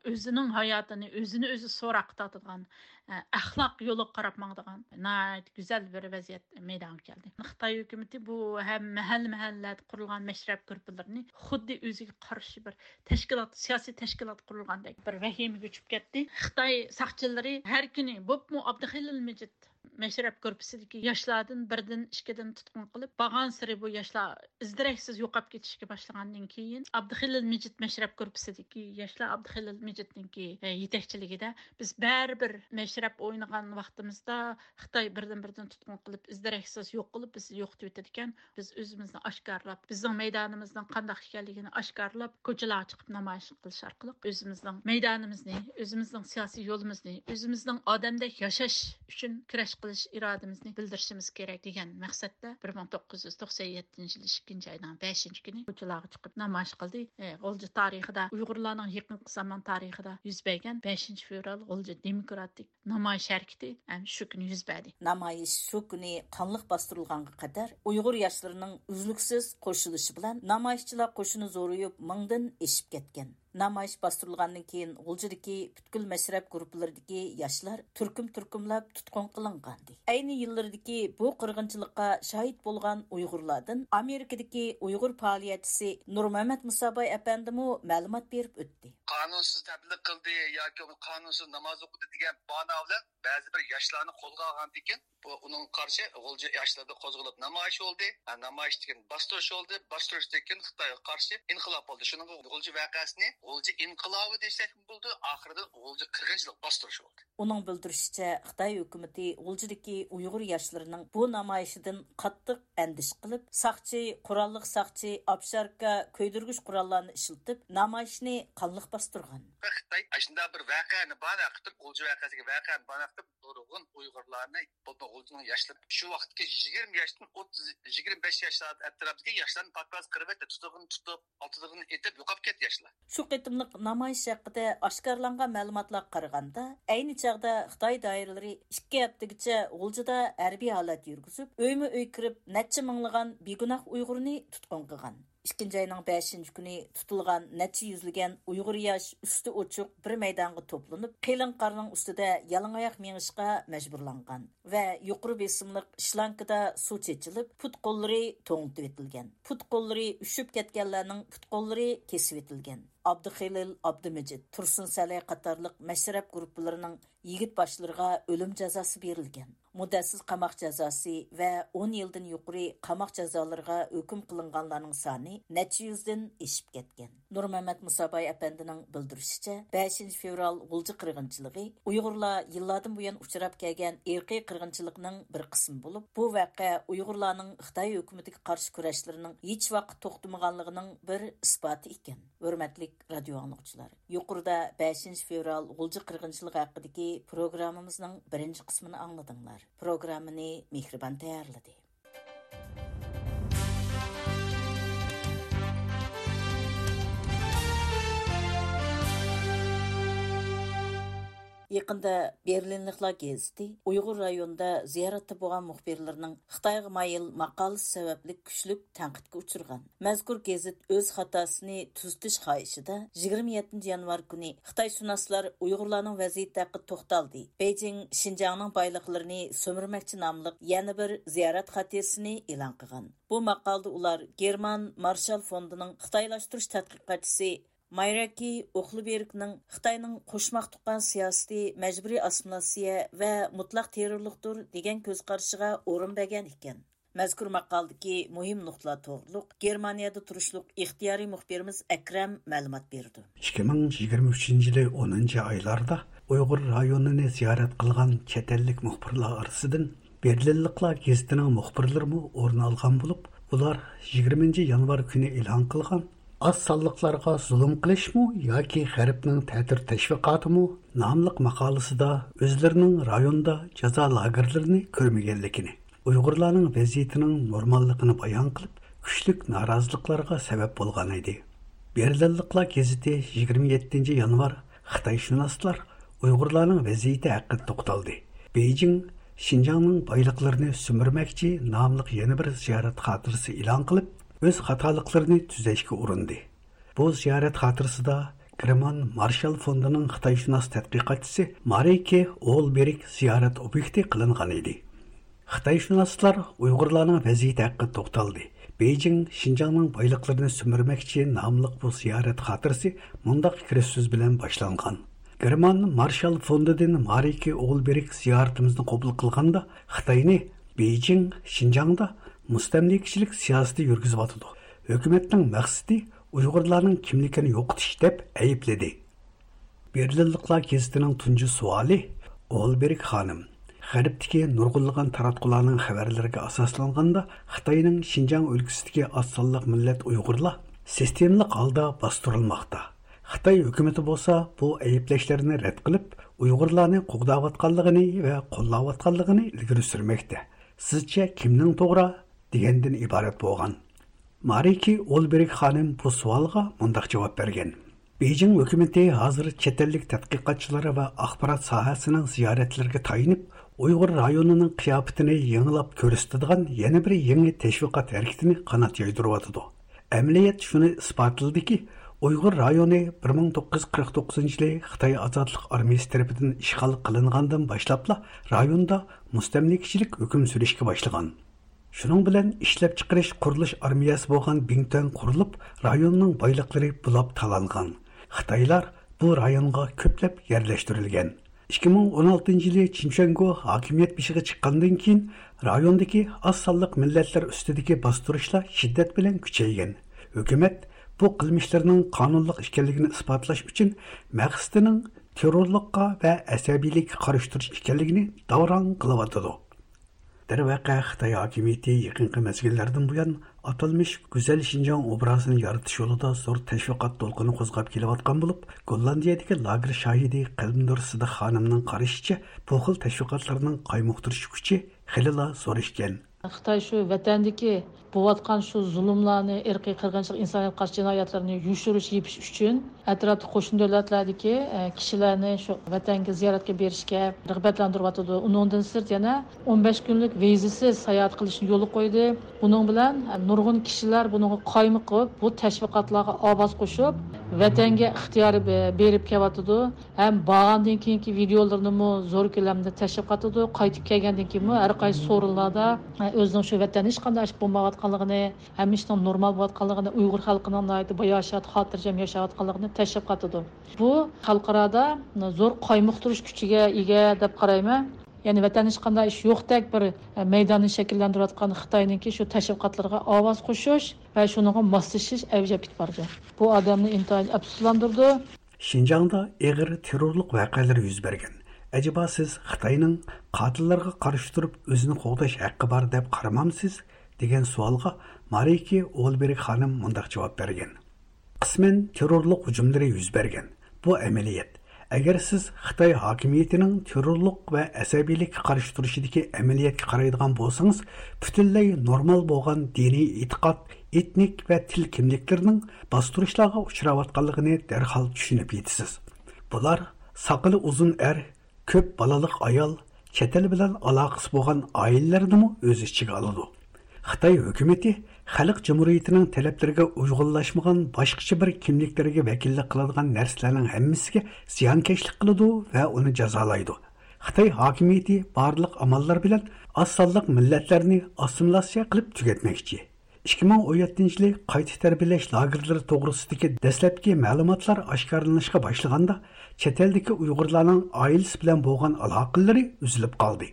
ئۆزىنىڭ ھاياتىنى ئۆزىنى ئۆزى سوراققا تارتىدىغان، ئە، ئەخلاق يولىغا قاراپ ماڭىدىغان ناھايىتى گۈزەل بىر ۋەزىيەت مەيدانغا كەلدى. خىتاي ھۆكۈمىتى بۇ ھەم مەھەللە-مەھەللىلەردە قۇرۇلغان مەشرەپ گۇرۇپپىلىرىنى خۇددى ئۆزىگە قارشى بىر تەشكىلات، سىياسىي تەشكىلات قۇرۇلغاندەك بىر ۋەھىمىگە چۈشۈپ كەتتى. خىتاي ساقچىلىرى ھەر كۈنى، بولۇپمۇ ئابدۇخېلىل مىجىت مەشرەپ گۇرۇپپىسىدىكى ياشلاردىن بىردىن، ئىككىدىن تۇتقۇن قىلىپ، بارغانسېرى بۇ ياشلار ئىز-دېرەكسىز يوقاپ كېتىشكە باشلىغاندىن كېيىن، ئابدۇخېلىل مىجىت مەشرەپ گۇرۇپپىسىدىكى ياشلار ئابدۇخېلىل مىجىتنىڭكى، ئە، يېتەكچىلىكىدە، بىز بەرىبىر مەشرەپ ئوينىغان ۋاقتىمىزدا خىتاي بىردىن-بىردىن تۇتقۇن قىلىپ، ئىز-دېرەكسىز يوق قىلىپ، بىزنى يوقىتىۋېتىدىكەن. بىز ئۆزىمىزنى ئاشكارىلاپ، بىزنىڭ مەيدانىمىزنىڭ قانداق ئىكەنلىكىنى ئاشكارىلاپ، كوچىلارغا چىقىپ نامايىش قىلىش ئارقىلىق ئۆزىمىزنىڭ مەيدانىمىزنى، ئۆزىمىزنىڭ سىياسىي يولىمىزنى، ئۆزىمىزنىڭ ئادەمدەك ياشاش ئۈچۈن كۈرەش قىلىش ئىرادىمىزنى بىلدۈرۈشىمىز كېرەك دېگەن مەقسەتتە، بىر مىڭ توققۇز يۈز توقسان يەتتىنچى يىل ئىككىنچى ئاينىڭ بەشىنچى كۈنى كوچىلارغا چىقىپ نامايىش قىلدى. ئى، غۇلجا تارىخىدا، ئۇيغۇرلارنىڭ يېقىنقى زامان تارىخىدا يۈز بەرگەن بەشىنچى فېۋرال غۇلجا دېموكراتىك نامايىش ھەرىكىتى ئەنە شۇ كۈنى يۈز بەردى. نامايىش شۇ كۈنى قانلىق باستۇرۇلغانغا قەدەر، ئۇيغۇر ياشلىرىنىڭ ئۈزلۈكسىز قوشۇلۇشى بىلەن نامايىشچىلار قوشۇنى زورىيىپ، مىڭدىن ئېشىپ كەتكەن. نامايىش باستۇرۇلغاندىن كېيىن، غۇلجىدىكى پۈتكۈل مەشرەپ گۇرۇپپىلىرىدىكى ياشلار تۈركۈم-تۈركۈملەپ تۇتقۇن قىلىنغانىدى. ئەينى يىللىرىدىكى بۇ قىرغىنچىلىققا شاھىت بولغان ئۇيغۇرلاردىن ئامېرىكىدىكى ئۇيغۇر پائالىيەتچىسى نۇرمەمەت مۇساباي ئەپەندىمۇ مەلۇمات بېرىپ ئۆتتى. قانۇنسىز تەبلىغ قىلدى ياكى بولمىسا قانۇنسىز ناماز ئوقۇدى دېگەن باھانە بىلەن بەزى بىر ياشلارنى قولغا ئالغاندىن كېيىن، بۇ ئۇنىڭغا قارشى غۇلجا ياشلىرىدا قوزغىلىپ نامايىش بولدى. ھە، نامايىشتىن كېيىن باستۇرۇش بولدى. باستۇرۇشتىن كېيىن خىتايغا قارشى ئىنقىلاب بولدى. شۇنىڭغا غۇلجا ۋەقەسىنى غۇلجا ئىنقىلابى دېسەكمۇ بولىدۇ. ئاخىرىدا غۇلجا قىرغىنچىلىق باستۇرۇش بولدى. ئۇنىڭ بىلدۈرۈشىچە، خىتاي ھۆكۈمىتى غۇلجىدىكى ئۇيغۇر ياشلىرىنىڭ بۇ نامايىشىدىن قاتتىق ئەندىشە قىلىپ، ساقچى، قوراللىق ساقچى، ئاپشاركا، كۆيدۈرگۈچ قوراللارنى ئىشلىتىپ، نامايىشنى قانلىق باستۇرغان. خىتاي ئاشۇنداق بىر ۋەقەنى باھانە قىلىپ، غۇلجا ۋەقەسىگە ۋەقەنى باھانە قىلىپ، نۇرغۇن ئۇيغۇرلارنى، بولۇپمۇ غۇلجىنىڭ ياشلىرى، شۇ ۋاقىتتىكى يىگىرمە ياشتىن ئوتتۇز، يىگىرمە بەش ياش ئەتراپىدىكى ياشلارنى پاكپاز قىرىۋەتتى، تۇتۇقىنى تۇتۇپ، ئاتىدىغىنى ئېتىپ يوقاپ كەتتى ياشلار. شۇ قېتىملىق نامايىش ھەققىدە ئاشكارىلانغان مەلۇماتلارغا قارىغاندا، ئەينى چاغدا خىتاي دائىرىلىرى ئىككى ھەپتىگىچە غۇلجىدا ھەربىي ھالەت يۈرگۈزۈپ، ئۆيمۇ ئۆي كىرىپ، نەچچە مىڭلىغان بىگۇناھ ئۇيغۇرنى تۇتقۇن قىلغان. ئىككىنچى ئاينىڭ بەشىنچى كۈنى تۇتۇلغان نەچچە يۈزلىگەن ئۇيغۇر ياش ئۈستى ئوچۇق بىر مەيدانغا توپلىنىپ، قېلىن قارنىڭ ئۈستىدە يالىڭاياق مېڭىشقا مەجبۇرلانغان ۋە يۇقىرى بېسىملىق شلانكىدا سۇ چېچىلىپ، پۇت-قوللىرى توڭلىتىۋېتىلگەن. پۇت-قوللىرى ئۈشۈپ كەتكەنلەرنىڭ پۇت-قوللىرى كېسىۋېتىلگەن. ئابدۇخېلىل ئابدۇمىجىت، تۇرسۇن سەلەي قاتارلىق مەشرەپ گۇرۇپپىلىرىنىڭ يىگىت باشلىرىغا ئۆلۈم جازاسى بېرىلگەن. مۇددەتسىز قاماق جازاسى ۋە ئون يىلدىن يۇقىرى قاماق جازالىرىغا ھۆكۈم قىلىنغانلارنىڭ سانى نەچچە يۈزدىن ئېشىپ كەتكەن. نۇرمەمەت مۇساباي ئەپەندىنىڭ بىلدۈرۈشىچە، بەشىنچى فېۋرال غۇلجا قىرغىنچىلىقى ئۇيغۇرلار يىللاردىن بۇيان ئۇچراپ كەلگەن ئىرقىي قىرغىنچىلىقنىڭ بىر قىسمى بولۇپ، بۇ ۋەقە ئۇيغۇرلارنىڭ خىتاي ھۆكۈمىتىگە قارشى كۈرەشلىرىنىڭ ھېچ ۋاقىت توختىمىغانلىقىنىڭ بىر ئىسپاتى ئىكەن. ھۆرمەتلىك رادىيو ئاڭلىغۇچىلار! يۇقىرىدا بەشىنچى فېۋرال غۇلجا قىرغىنچىلىقى ھەققىدىكى پروگراممىمىزنىڭ بىرىنچى قىسمىنى ئاڭلىدىڭلار. پروگراممىنى مېھرىبان تەييارلىدى. يېقىندا بېرلىنلىقلار گېزىتى ئۇيغۇر رايونىدا زىيارەتتە بولغان مۇخبىرلىرىنىڭ خىتايغا مايىل ماقالىسى سەۋەبلىك كۈچلۈك تەنقىدكە ئۇچرىغان. مەزكۇر گېزىت ئۆز خاتاسىنى تۈزىتىش خاھىشىدا يىگىرمە يەتتىنچى يانۋار كۈنى خىتايشۇناسلار ئۇيغۇرلارنىڭ ۋەزىيىتى ھەققىدە توختالدى، بېيجىڭ شىنجاڭنىڭ بايلىقلىرىنى سۈمۈرمەكچى ناملىق يەنە بىر زىيارەت خاتىرىسىنى ئېلان قىلغان. بۇ ماقالىدە ئۇلار گېرمان مارشال فوندىنىڭ خىتايلاشتۇرۇش تەتقىقاتچىسى مايراكى ئوخلبېرگنىڭ خىتاينىڭ قوشماق تۇغقان سىياسىتى مەجبۇرىي ئاسسىمىلياتسىيە ۋە مۇتلەق تېررورلۇقتۇر دېگەن كۆز قارىشىغا ئورۇن بەرگەن ئىكەن. مەزكۇر ماقالىدىكى مۇھىم نۇقتىلار توغرۇلۇق گېرمانىيەدە تۇرۇشلۇق ئىختىيارىي مۇخبىرىمىز ئەكرەم مەلۇمات بېرىدۇ. ئىككى مىڭ يىگىرمە ئۈچىنچى يىلى ئونىنچى ئايلاردا ئۇيغۇر رايونىنى زىيارەت قىلغان چەت ئەللىك مۇخبىرلار ئارىسىدىن بېرلىنلىقلار گېزىتىنىڭ مۇخبىرلىرىمۇ ئورۇن ئالغان بولۇپ، ئۇلار يىگىرمىنچى يانۋار كۈنى ئېلان قىلغان ئاز سانلىقلارغا زۇلۇم قىلىشمۇ ياكى غەربنىڭ تەتۈر تەشۋىقاتىمۇ ناملىق ماقالىسىدا ئۆزلىرىنىڭ رايوندا جازا لاگېرلىرىنى كۆرمىگەنلىكىنى، ئۇيغۇرلارنىڭ ۋەزىيىتىنىڭ نورماللىقىنى بايان قىلىپ، كۈچلۈك نارازىلىقلارغا سەۋەب بولغان ئىدى. بېرلىنلىقلار گېزىتى يىگىرمە يەتتىنچى يانۋار خىتايشۇناسلار ئۇيغۇرلارنىڭ ۋەزىيىتى ھەققىدە توختالدى. بېيجىڭ شىنجاڭنىڭ بايلىقلىرىنى سۈمۈرمەكچى ناملىق يەنە بىر زىيارەت خاتىرىسى ئېلان قىلىپ، ئۆز خاتالىقلىرىنى تۈزەشكە ئۇرۇندى. بۇ زىيارەت خاتىرىسىدا گېرمان مارشال فوندىنىڭ خىتايشۇناس تەتقىقاتچىسى مارىكې ئولبېرگ زىيارەت ئوبيېكتى قىلىنغان ئىدى. خىتايشۇناسلار ئۇيغۇرلارنىڭ ۋەزىيىتى ھەققىدە توختالدى. بېيجىڭ شىنجاڭنىڭ بايلىقلىرىنى سۈمۈرمەكچى ناملىق بۇ زىيارەت خاتىرىسى مۇنداق كىرىش سۆز بىلەن باشلانغان. گېرمان مارشال فوندىدىن مارىكې ئولبېرگ زىيارىتىمىزنى قوبۇل قىلغاندا، خىتاينى بېيجىڭ شىنجاڭدا مۇستەملىكىچىلىك سىياسىتى يۈرگۈزۈۋاتىدۇ، ھۆكۈمەتنىڭ مەقسىتى ئۇيغۇرلارنىڭ كىملىكىنى يوقىتىش دەپ ئەيىبلىدى. بېرلىنلىقلار گېزىتىنىڭ تۇنجى سوئالى، ئولبېرگ خانىم، غەربتىكى نۇرغۇنلىغان تاراتقۇلارنىڭ خەۋەرلىرىگە ئاساسلانغاندا، خىتاينىڭ شىنجاڭ ئۆلكىسىدىكى ئاز سانلىق مىللەت ئۇيغۇرلار سىستېمىلىق ھالدا باستۇرۇلماقتا. خىتاي ھۆكۈمىتى بولسا بۇ ئەيىبلەشلەرنى رەت قىلىپ، ئۇيغۇرلارنى قوغداۋاتقانلىقىنى ۋە قوللاۋاتقانلىقىنى ئىلگىرى سۈرمەكتە. سىزچە كىمنىڭ توغرا؟ دېگەندىن ئىبارەت بولغان. مارىكى ئولبېرگ خانىم بۇ سوئالغا مۇنداق جاۋاب بەرگەن: بېيجىڭ ھۆكۈمىتى ھازىر چەت ئەللىك تەتقىقاتچىلار ۋە ئاخبارات ساھەسىنىڭ زىيارەتلىرىگە تايىنىپ، ئۇيغۇر رايونىنىڭ قىياپىتىنى يېڭىلاپ كۆرسىتىدىغان يەنە بىر يېڭى تەشۋىقات ھەرىكىتىنى قانات يايدۇرۇۋاتىدۇ. ئەمەلىيەت شۇنى ئىسپاتلىدىكى، ئۇيغۇر رايونى بىر مىڭ توققۇز يۈز قىرىق توققۇزىنچى يىلى خىتاي ئازادلىق ئارمىيىسى تەرىپىدىن ئىشغال قىلىنغاندىن باشلاپلا رايوندا مۇستەملىكىچىلىك ھۆكۈم سۈرۈشكە باشلىغان. شۇنىڭ بىلەن ئىشلەپچىقىرىش قۇرۇلۇش ئارمىيەسى بولغان بىڭتۈەن قۇرۇلۇپ، رايوننىڭ بايلىقلىرى بۇلاپ تالانغان. خىتايلار بۇ رايونغا كۆپلەپ يەرلەشتۈرۈلگەن. ئىككى مىڭ ئون ئالتىنچى يىلى چىن شۈەنگو ھاكىمىيەت بېشىغا چىققاندىن كېيىن، رايوندىكى ئاز سانلىق مىللەتلەر ئۈستىدىكى باستۇرۇشلار شىددەت بىلەن كۈچەيگەن. ھۆكۈمەت بۇ قىلمىشلىرىنىڭ قانۇنلۇق ئىكەنلىكىنى ئىسپاتلاش ئۈچۈن مەقسىتىنىڭ تېررورلۇققا ۋە ئەسەبىيلىككە قارشى تۇرۇش ئىكەنلىكىنى داۋراڭ قىلىۋاتىدۇ. دەرۋەقە، خىتاي ھاكىمىيىتى يېقىنقى مەزگىللەردىن بۇيان ئاتالمىش گۈزەل شىنجاڭ ئوبرازىنى يارىتىش يولىدا زور تەشۋىقات دولقۇنى قوزغاپ كېلىۋاتقان بولۇپ، گوللاندىيەدىكى لاگېر شاھىدى قەلبىنۇر سىدىق خانىمنىڭ قارىشىچە، بۇ خىل تەشۋىقاتلارنىڭ قايمۇقتۇرۇش كۈچى خېلىلا زور ئىكەن. خىتاي شۇ ۋەتەندىكى بولۇۋاتقان شۇ زۇلۇملارنى، ئىرقىي قىرغىنچىلىق، ئىنسانىيەتكە قارشى جىنايەتلەرنى يوشۇرۇش، يېپىش ئۈچۈن ئەتراپتىكى قوشنا دۆلەتلەردىكى، ئە، كىشىلەرنى شۇ ۋەتەنگە زىيارەتكە بېرىشكە رىغبەتلەندۈرۈۋاتىدۇ. ئۇنىڭدىن سىرت يەنە ئون بەش كۈنلۈك ۋىزىسىز ساياھەت قىلىشنى يولغا قويدى. بۇنىڭ بىلەن، ئە، نۇرغۇن كىشىلەر بۇنىڭغا قايمۇقۇپ، بۇ تەشۋىقاتلارغا ئاۋاز قوشۇپ، ۋەتەنگە ئىختىيارى بېرىپ كېلىۋاتىدۇ. ھەم بارغاندىن كېيىنكى ۋىدىيولىرىنىمۇ زور كۆلەمدە تەشۋىق قىلىدۇ. قايتىپ كەلگەندىن كېيىنمۇ ھەر قايسى سورۇنلاردا، ئە، ئۆزىنىڭ شۇ ۋەتەندە ھېچقانداق ئىش بولمايۋاتقانلىقىنى، ھەممە ئىشنىڭ نورمال بولۇۋاتقانلىقىنى، ئۇيغۇر خەلقىنىڭ ناھايىتى باياشات، خاتىرجەم ياشاۋاتقانلىقىنى تەشۋىق قىلىدۇ. بۇ خەلقئارادا زور قايمۇقتۇرۇش كۈچىگە ئىگە دەپ قارايمەن. يەنى ۋەتەندە ھېچقانداق ئىش يوقتەك بىر، ئە، مەيداننى شەكىللەندۈرۈۋاتقان خىتاينىڭكى شۇ تەشۋىقاتلىرىغا ئاۋاز قوشۇش ۋە شۇنىڭغا ماسلىشىش ئەۋج ئېلىپ كېتىپ بارىدۇ. بۇ ئادەمنى ئىنتايىن ئەپسۇسلاندۇرىدۇ. شىنجاڭدا ئېغىر تېررورلۇق ۋەقەلىرى يۈز بەرگەن. ئەجەبا سىز خىتاينىڭ قاتىللارغا قارشى تۇرۇپ ئۆزىنى قوغداش ھەققى بار دەپ قارىمامسىز؟ دېگەن سوئالغا مارىكى ئولبېرگ خانىم مۇنداق جاۋاب بەرگەن. قىسمەن تېررورلۇق ھۇجۇملىرى يۈز بەرگەن. بۇ ئەمەلىيەت. ئەگەر سىز خىتاي ھاكىمىيىتىنىڭ تېررورلۇق ۋە ئەسەبىيلىككە قارشى تۇرۇشىدىكى ئەمەلىيەتكە قارايدىغان بولسىڭىز، پۈتۈنلەي نورمال بولغان دىنىي ئېتىقاد، ئېتنىك ۋە تىل كىملىكلىرىنىڭ باستۇرۇشلارغا ئۇچراۋاتقانلىقىنى دەرھال چۈشىنىپ يېتىسىز. بۇلار ساقىلى ئۇزۇن ئەر، كۆپ بالىلىق ئايال، چەت ئەل بىلەن ئالاقىسى بولغان ئائىلىلەرنىمۇ ئۆز ئىچىگە ئالىدۇ. خىتاي ھۆكۈمىتى خەلق جۇمھۇرىيىتىنىڭ تەلەپلىرىگە ئۇيغۇنلاشمىغان باشقىچە بىر كىملىكلەرگە ۋەكىللىك قىلىدىغان نەرسىلەرنىڭ ھەممىسىگە زىيانكەشلىك قىلىدۇ ۋە ئۇنى جازالايدۇ. خىتاي ھاكىمىيىتى بارلىق ئاماللار بىلەن ئاز سانلىق مىللەتلەرنى ئاسسىمىلياتسىيە قىلىپ تۈگەتمەكچى. ئىككى مىڭ ئون يەتتىنچى يىلى قايتا تەربىيەلەش لاگېرلىرى توغرىسىدىكى دەسلەپكى مەلۇماتلار ئاشكارىلىنىشقا باشلىغاندا، چەت ئەلدىكى ئۇيغۇرلارنىڭ ئائىلىسى بىلەن بولغان ئالاقىلىرى ئۈزۈلۈپ قالدى.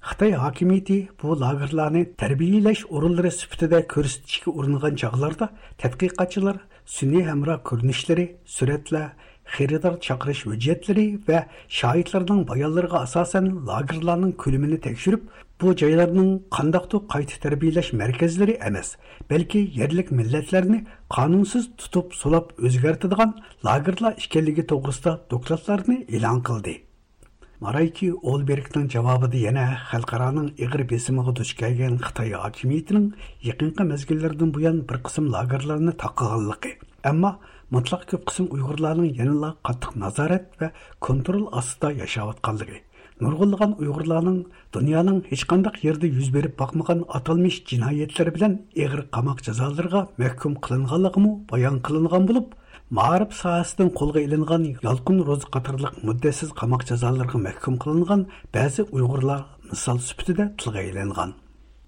خىتاي ھاكىمىيىتى بۇ لاگېرلارنى تەربىيەلەش ئورۇنلىرى سۈپىتىدە كۆرسىتىشكە ئۇرۇنغان چاغلاردا، تەتقىقاتچىلار سۈنئىي ھەمراھ كۆرۈنۈشلىرى، سۈرەتلەر، خېرىدار چاقىرىش ھۆججەتلىرى ۋە شاھىتلارنىڭ بايانلىرىغا ئاساسەن لاگېرلارنىڭ كۆلىمىنى تەكشۈرۈپ، بۇ جايلارنىڭ قانداقتۇر قايتا تەربىيەلەش مەركەزلىرى ئەمەس، بەلكى يەرلىك مىللەتلەرنى قانۇنسىز تۇتۇپ، سولاپ ئۆزگەرتىدىغان لاگېرلار ئىكەنلىكى توغرىسىدا دوكلاتلارنى ئېلان قىلدى. مارايكى ئولبېرگنىڭ جاۋابىدا يەنە خەلقئارانىڭ ئېغىر بېسىمىغا دۇچ كەلگەن خىتاي ھاكىمىيىتىنىڭ يېقىنقى مەزگىللەردىن بۇيان بىر قىسىم لاگېرلارنى تاقىغانلىقى، ئەمما مۇتلەق كۆپ قىسىم ئۇيغۇرلارنىڭ يەنىلا قاتتىق نازارەت ۋە كونترول ئاستىدا ياشاۋاتقانلىقى، نۇرغۇنلىغان ئۇيغۇرلارنىڭ دۇنيانىڭ ھېچقانداق يېرىدە يۈز بېرىپ باقمىغان ئاتالمىش جىنايەتلەر بىلەن ئېغىر قاماق جازالىرىغا مەھكۇم قىلىنغانلىقىمۇ بايان قىلىنغان بولۇپ، مائارىپ ساھەسىدىن قولغا ئېلىنغان يالقۇن روزى قاتارلىق مۇددەتسىز قاماق جازالىرىغا مەھكۇم قىلىنغان بەزى ئۇيغۇرلار مىسال سۈپىتىدە تىلغا ئېلىنغان.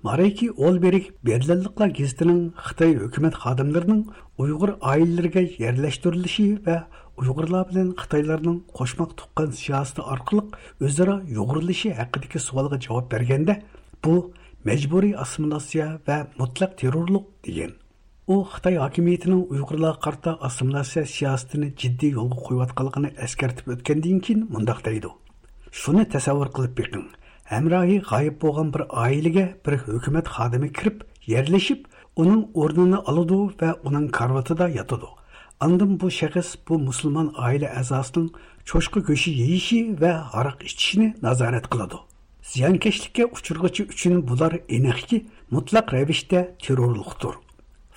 مارىكى ئولبېرگ بېرلىنلىقلار گېزىتىنىڭ خىتاي ھۆكۈمەت خادىملىرىنىڭ ئۇيغۇر ئائىلىلىرىگە يەرلەشتۈرۈلۈشى ۋە ئۇيغۇرلار بىلەن خىتايلارنىڭ قوشماق تۇغقان سىياسىتى ئارقىلىق ئۆزئارا يۇغۇرۇلۇشى ھەققىدىكى سوئالغا جاۋاب بەرگەندە، بۇ مەجبۇرىي ئاسسىمىلياتسىيە ۋە مۇتلەق تېررورلۇق، دېگەن. ئۇ خىتاي ھاكىمىيىتىنىڭ ئۇيغۇرلارغا قارىتا ئاسسىمىلياتسىيە سىياسىتىنى جىددىي يولغا قويۇۋاتقانلىقىنى ئەسكەرتىپ ئۆتكەندىن كېيىن مۇنداق دەيدۇ: شۇنى تەسەۋۋۇر قىلىپ بېقىڭ، ھەمراھى غايىب بولغان بىر ئائىلىگە بىر ھۆكۈمەت خادىمى كىرىپ يەرلىشىپ، ئۇنىڭ ئورنىنى ئالىدۇ ۋە ئۇنىڭ كارىۋىتىدا ياتىدۇ. ئاندىن بۇ شەخس بۇ مۇسۇلمان ئائىلە ئەزاسىنىڭ چوشقا گۆشى يېيىشى ۋە ھاراق ئىچىشىنى نازارەت قىلىدۇ. زىيانكەشلىككە ئۇچرىغۇچى ئۈچۈن بۇلار ئېنىقكى مۇتلەق رەۋىشتە تېررورلۇقتۇر.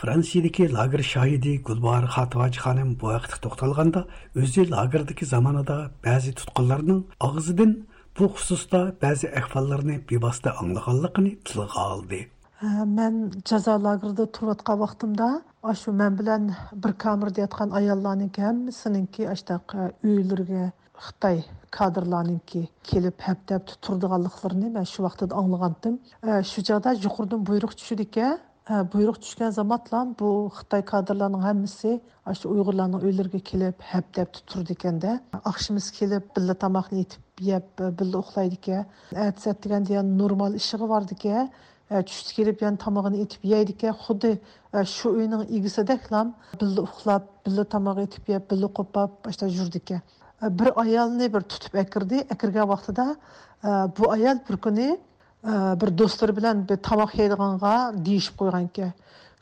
فرانسىيەدىكى لاگېر شاھىدى گۈلباھار خاتىۋاجى خانىم بۇ ھەقتە توختالغاندا، ئۆزى لاگېردىكى زامانىدا بەزى تۇتقۇنلارنىڭ ئاغزىدىن بۇ خۇسۇستا بەزى ئەھۋاللارنى بىۋاسىتە ئاڭلىغانلىقىنى تىلغا ئالدى. ھە، مەن جازا لاگېرىدا تۇرۇۋاتقان ۋاقتىمدا، ئاشۇ مەن بىلەن بىر كامېردا ياتقان ئاياللارنىڭكى ھەممىسىنىڭكى ئاشتاق، ئە، ئۆيلىرىگە خىتاي كادىرلارنىڭكى كېلىپ ھەپتە-ھەپتە تۇرىدىغانلىقلىرىنى مەن شۇ ۋاقتىدا ئاڭلىغانتىم. ئە، شۇ چاغدا يۇقىرىدىن بۇيرۇق چۈشىدىكەن. ئە، بۇيرۇق چۈشكەن زامانلام بۇ خىتاي كادىرلارنىڭ ھەممىسى ئاشۇ ئۇيغۇرلارنىڭ ئۆيلىرىگە كېلىپ ھەپتە-ھەپتە تۇرىدىكەن-دە. ئاخشىمىسى كېلىپ بىللە تاماقنى ئېتىپ يەپ، بىللە ئۇخلايدىكەن. ئەتىسى ئەتىگەندە يەنە نورمال ئىشىغا بارىدىكەن. ئە، چۈشتە كېلىپ يەنە تامىقىنى ئېتىپ يەيدىكەن. خۇددى، ئە، شۇ ئۆينىڭ ئىگىسىدەكلا بىللە ئۇخلاپ، بىللە تاماق ئېتىپ يەپ، بىللە قوپاپ، ئاشتا يۈرىدىكەن. ئە، بىر ئايالنى بىر تۇتۇپ ئەكىردى. ئەكىرگەن ۋاقتىدا، ئە، بۇ ئايال بىر كۈنى، ئە، بىر دوستلىرى بىلەن بىر تاماق يەيدىغانغا دېيىشىپ قويغانىكەن.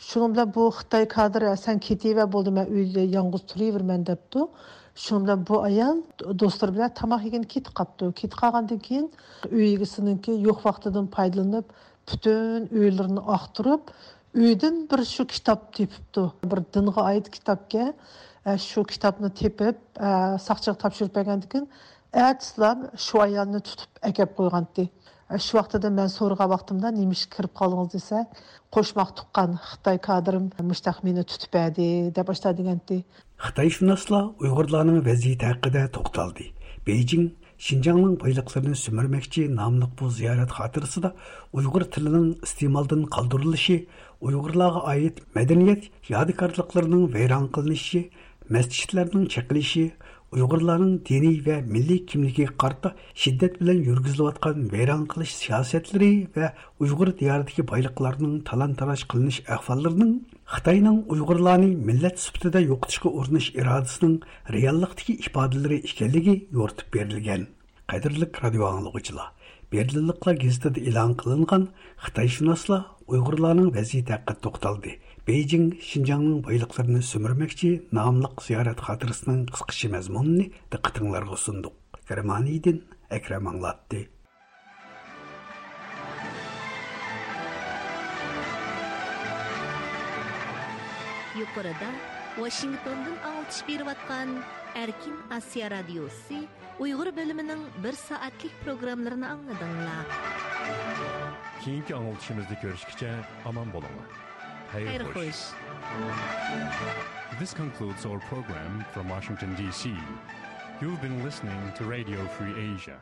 شۇنىڭ بىلەن بۇ خىتاي كادىرى، «سەن كېتىۋەر، بولدى، مەن ئۆيدە يالغۇز تۇرۇۋېرىمەن» دەپتۇ. شۇنىڭ بىلەن بۇ ئايال دوستلىرى بىلەن تاماق يېگىلى كېتىپ قاپتۇ. كېتىپ قالغاندىن كېيىن ئۆي ئىگىسىنىڭكى يوق ۋاقتىدىن پايدىلىنىپ، پۈتۈن ئۆيلىرىنى ئاختۇرۇپ، ئۆيدىن بىر شۇ كىتاب تېپىپتۇ. بىر دىنغا ئائىت كىتابكەن. ئە، شۇ كىتابنى تېپىپ، ئە، ساقچىغا تاپشۇرۇپ بەرگەندىن كېيىن، ئەتىسىلا شۇ ئايالنى تۇتۇپ ئەكەپ قويغانتى. ئە، شۇ ۋاقتىدا مەن سورىغان ۋاقتىمدا، «نېمە ئىشقا كىرىپ قالدىڭىز؟» دېسە، «قوشماق تۇغقان خىتاي كادىرىم مۇشتاق مېنى تۇتۇپ بەردى» دەپ ئاشتا دېگەنتى. خىتايشۇناسلار ئۇيغۇرلارنىڭ ۋەزىيىتى ھەققىدە توختالدى. بېيجىڭ شىنجاڭنىڭ بايلىقلىرىنى سۈمۈرمەكچى ناملىق بۇ زىيارەت خاتىرىسىدا ئۇيغۇر تىلىنىڭ ئىستېمالدىن قالدۇرۇلۇشى، ئۇيغۇرلارغا ئائىت مەدەنىيەت يادىكارلىقلىرىنىڭ ۋەيران قىلىنىشى، مەسچىتلەرنىڭ چېقىلىشى، ئۇيغۇرلارنىڭ دىنىي ۋە مىللىي كىملىكىگە قارىتا شىددەت بىلەن يۈرگۈزۈلۈۋاتقان ۋەيران قىلىش سىياسەتلىرى ۋە ئۇيغۇر دىيارىدىكى بايلىقلارنىڭ تالان-تاراج قىلىنىش ئەھۋاللىرىنىڭ خىتاينىڭ ئۇيغۇرلارنى مىللەت سۈپىتىدە يوقىتىشقا ئۇرۇنۇش ئىرادىسىنىڭ رېئاللىقتىكى ئىپادىلىرى ئىكەنلىكى يورۇتۇپ بېرىلگەن. قەدىرلىك رادىئو ئاڭلىغۇچىلار، بېرلىنلىقلار گېزىتىدە ئېلان قىلىنغان خىتايشۇناسلار ئۇيغۇرلارنىڭ ۋەزىيىتى ھەققىدە توختالدى. بېيجىڭ شىنجاڭنىڭ بايلىقلىرىنى سۈمۈرمەكچى ناملىق زىيارەت خاتىرىسىنىڭ قىسقىچە مەزمۇنىنى دىققىتىڭلارغا سۇندۇق. گېرمانىيەدىن ئەكرەم ئاڭلاتتى. يۇقىرىدا ۋاشىنگتوندىن ئاڭلىتىش بېرىۋاتقان ئەركىن ئاسىيا رادىيوسى ئۇيغۇر بۆلۈمىنىڭ بىر سائەتلىك پروگراممىلىرىنى ئاڭلىدىڭلار. كېيىنكى ئاڭلىتىشىمىزدا كۆرۈشكىچە ئامان بولۇڭلار. خەير خوش. This concludes our program from Washington, D C. You've been listening to Radio Free Asia.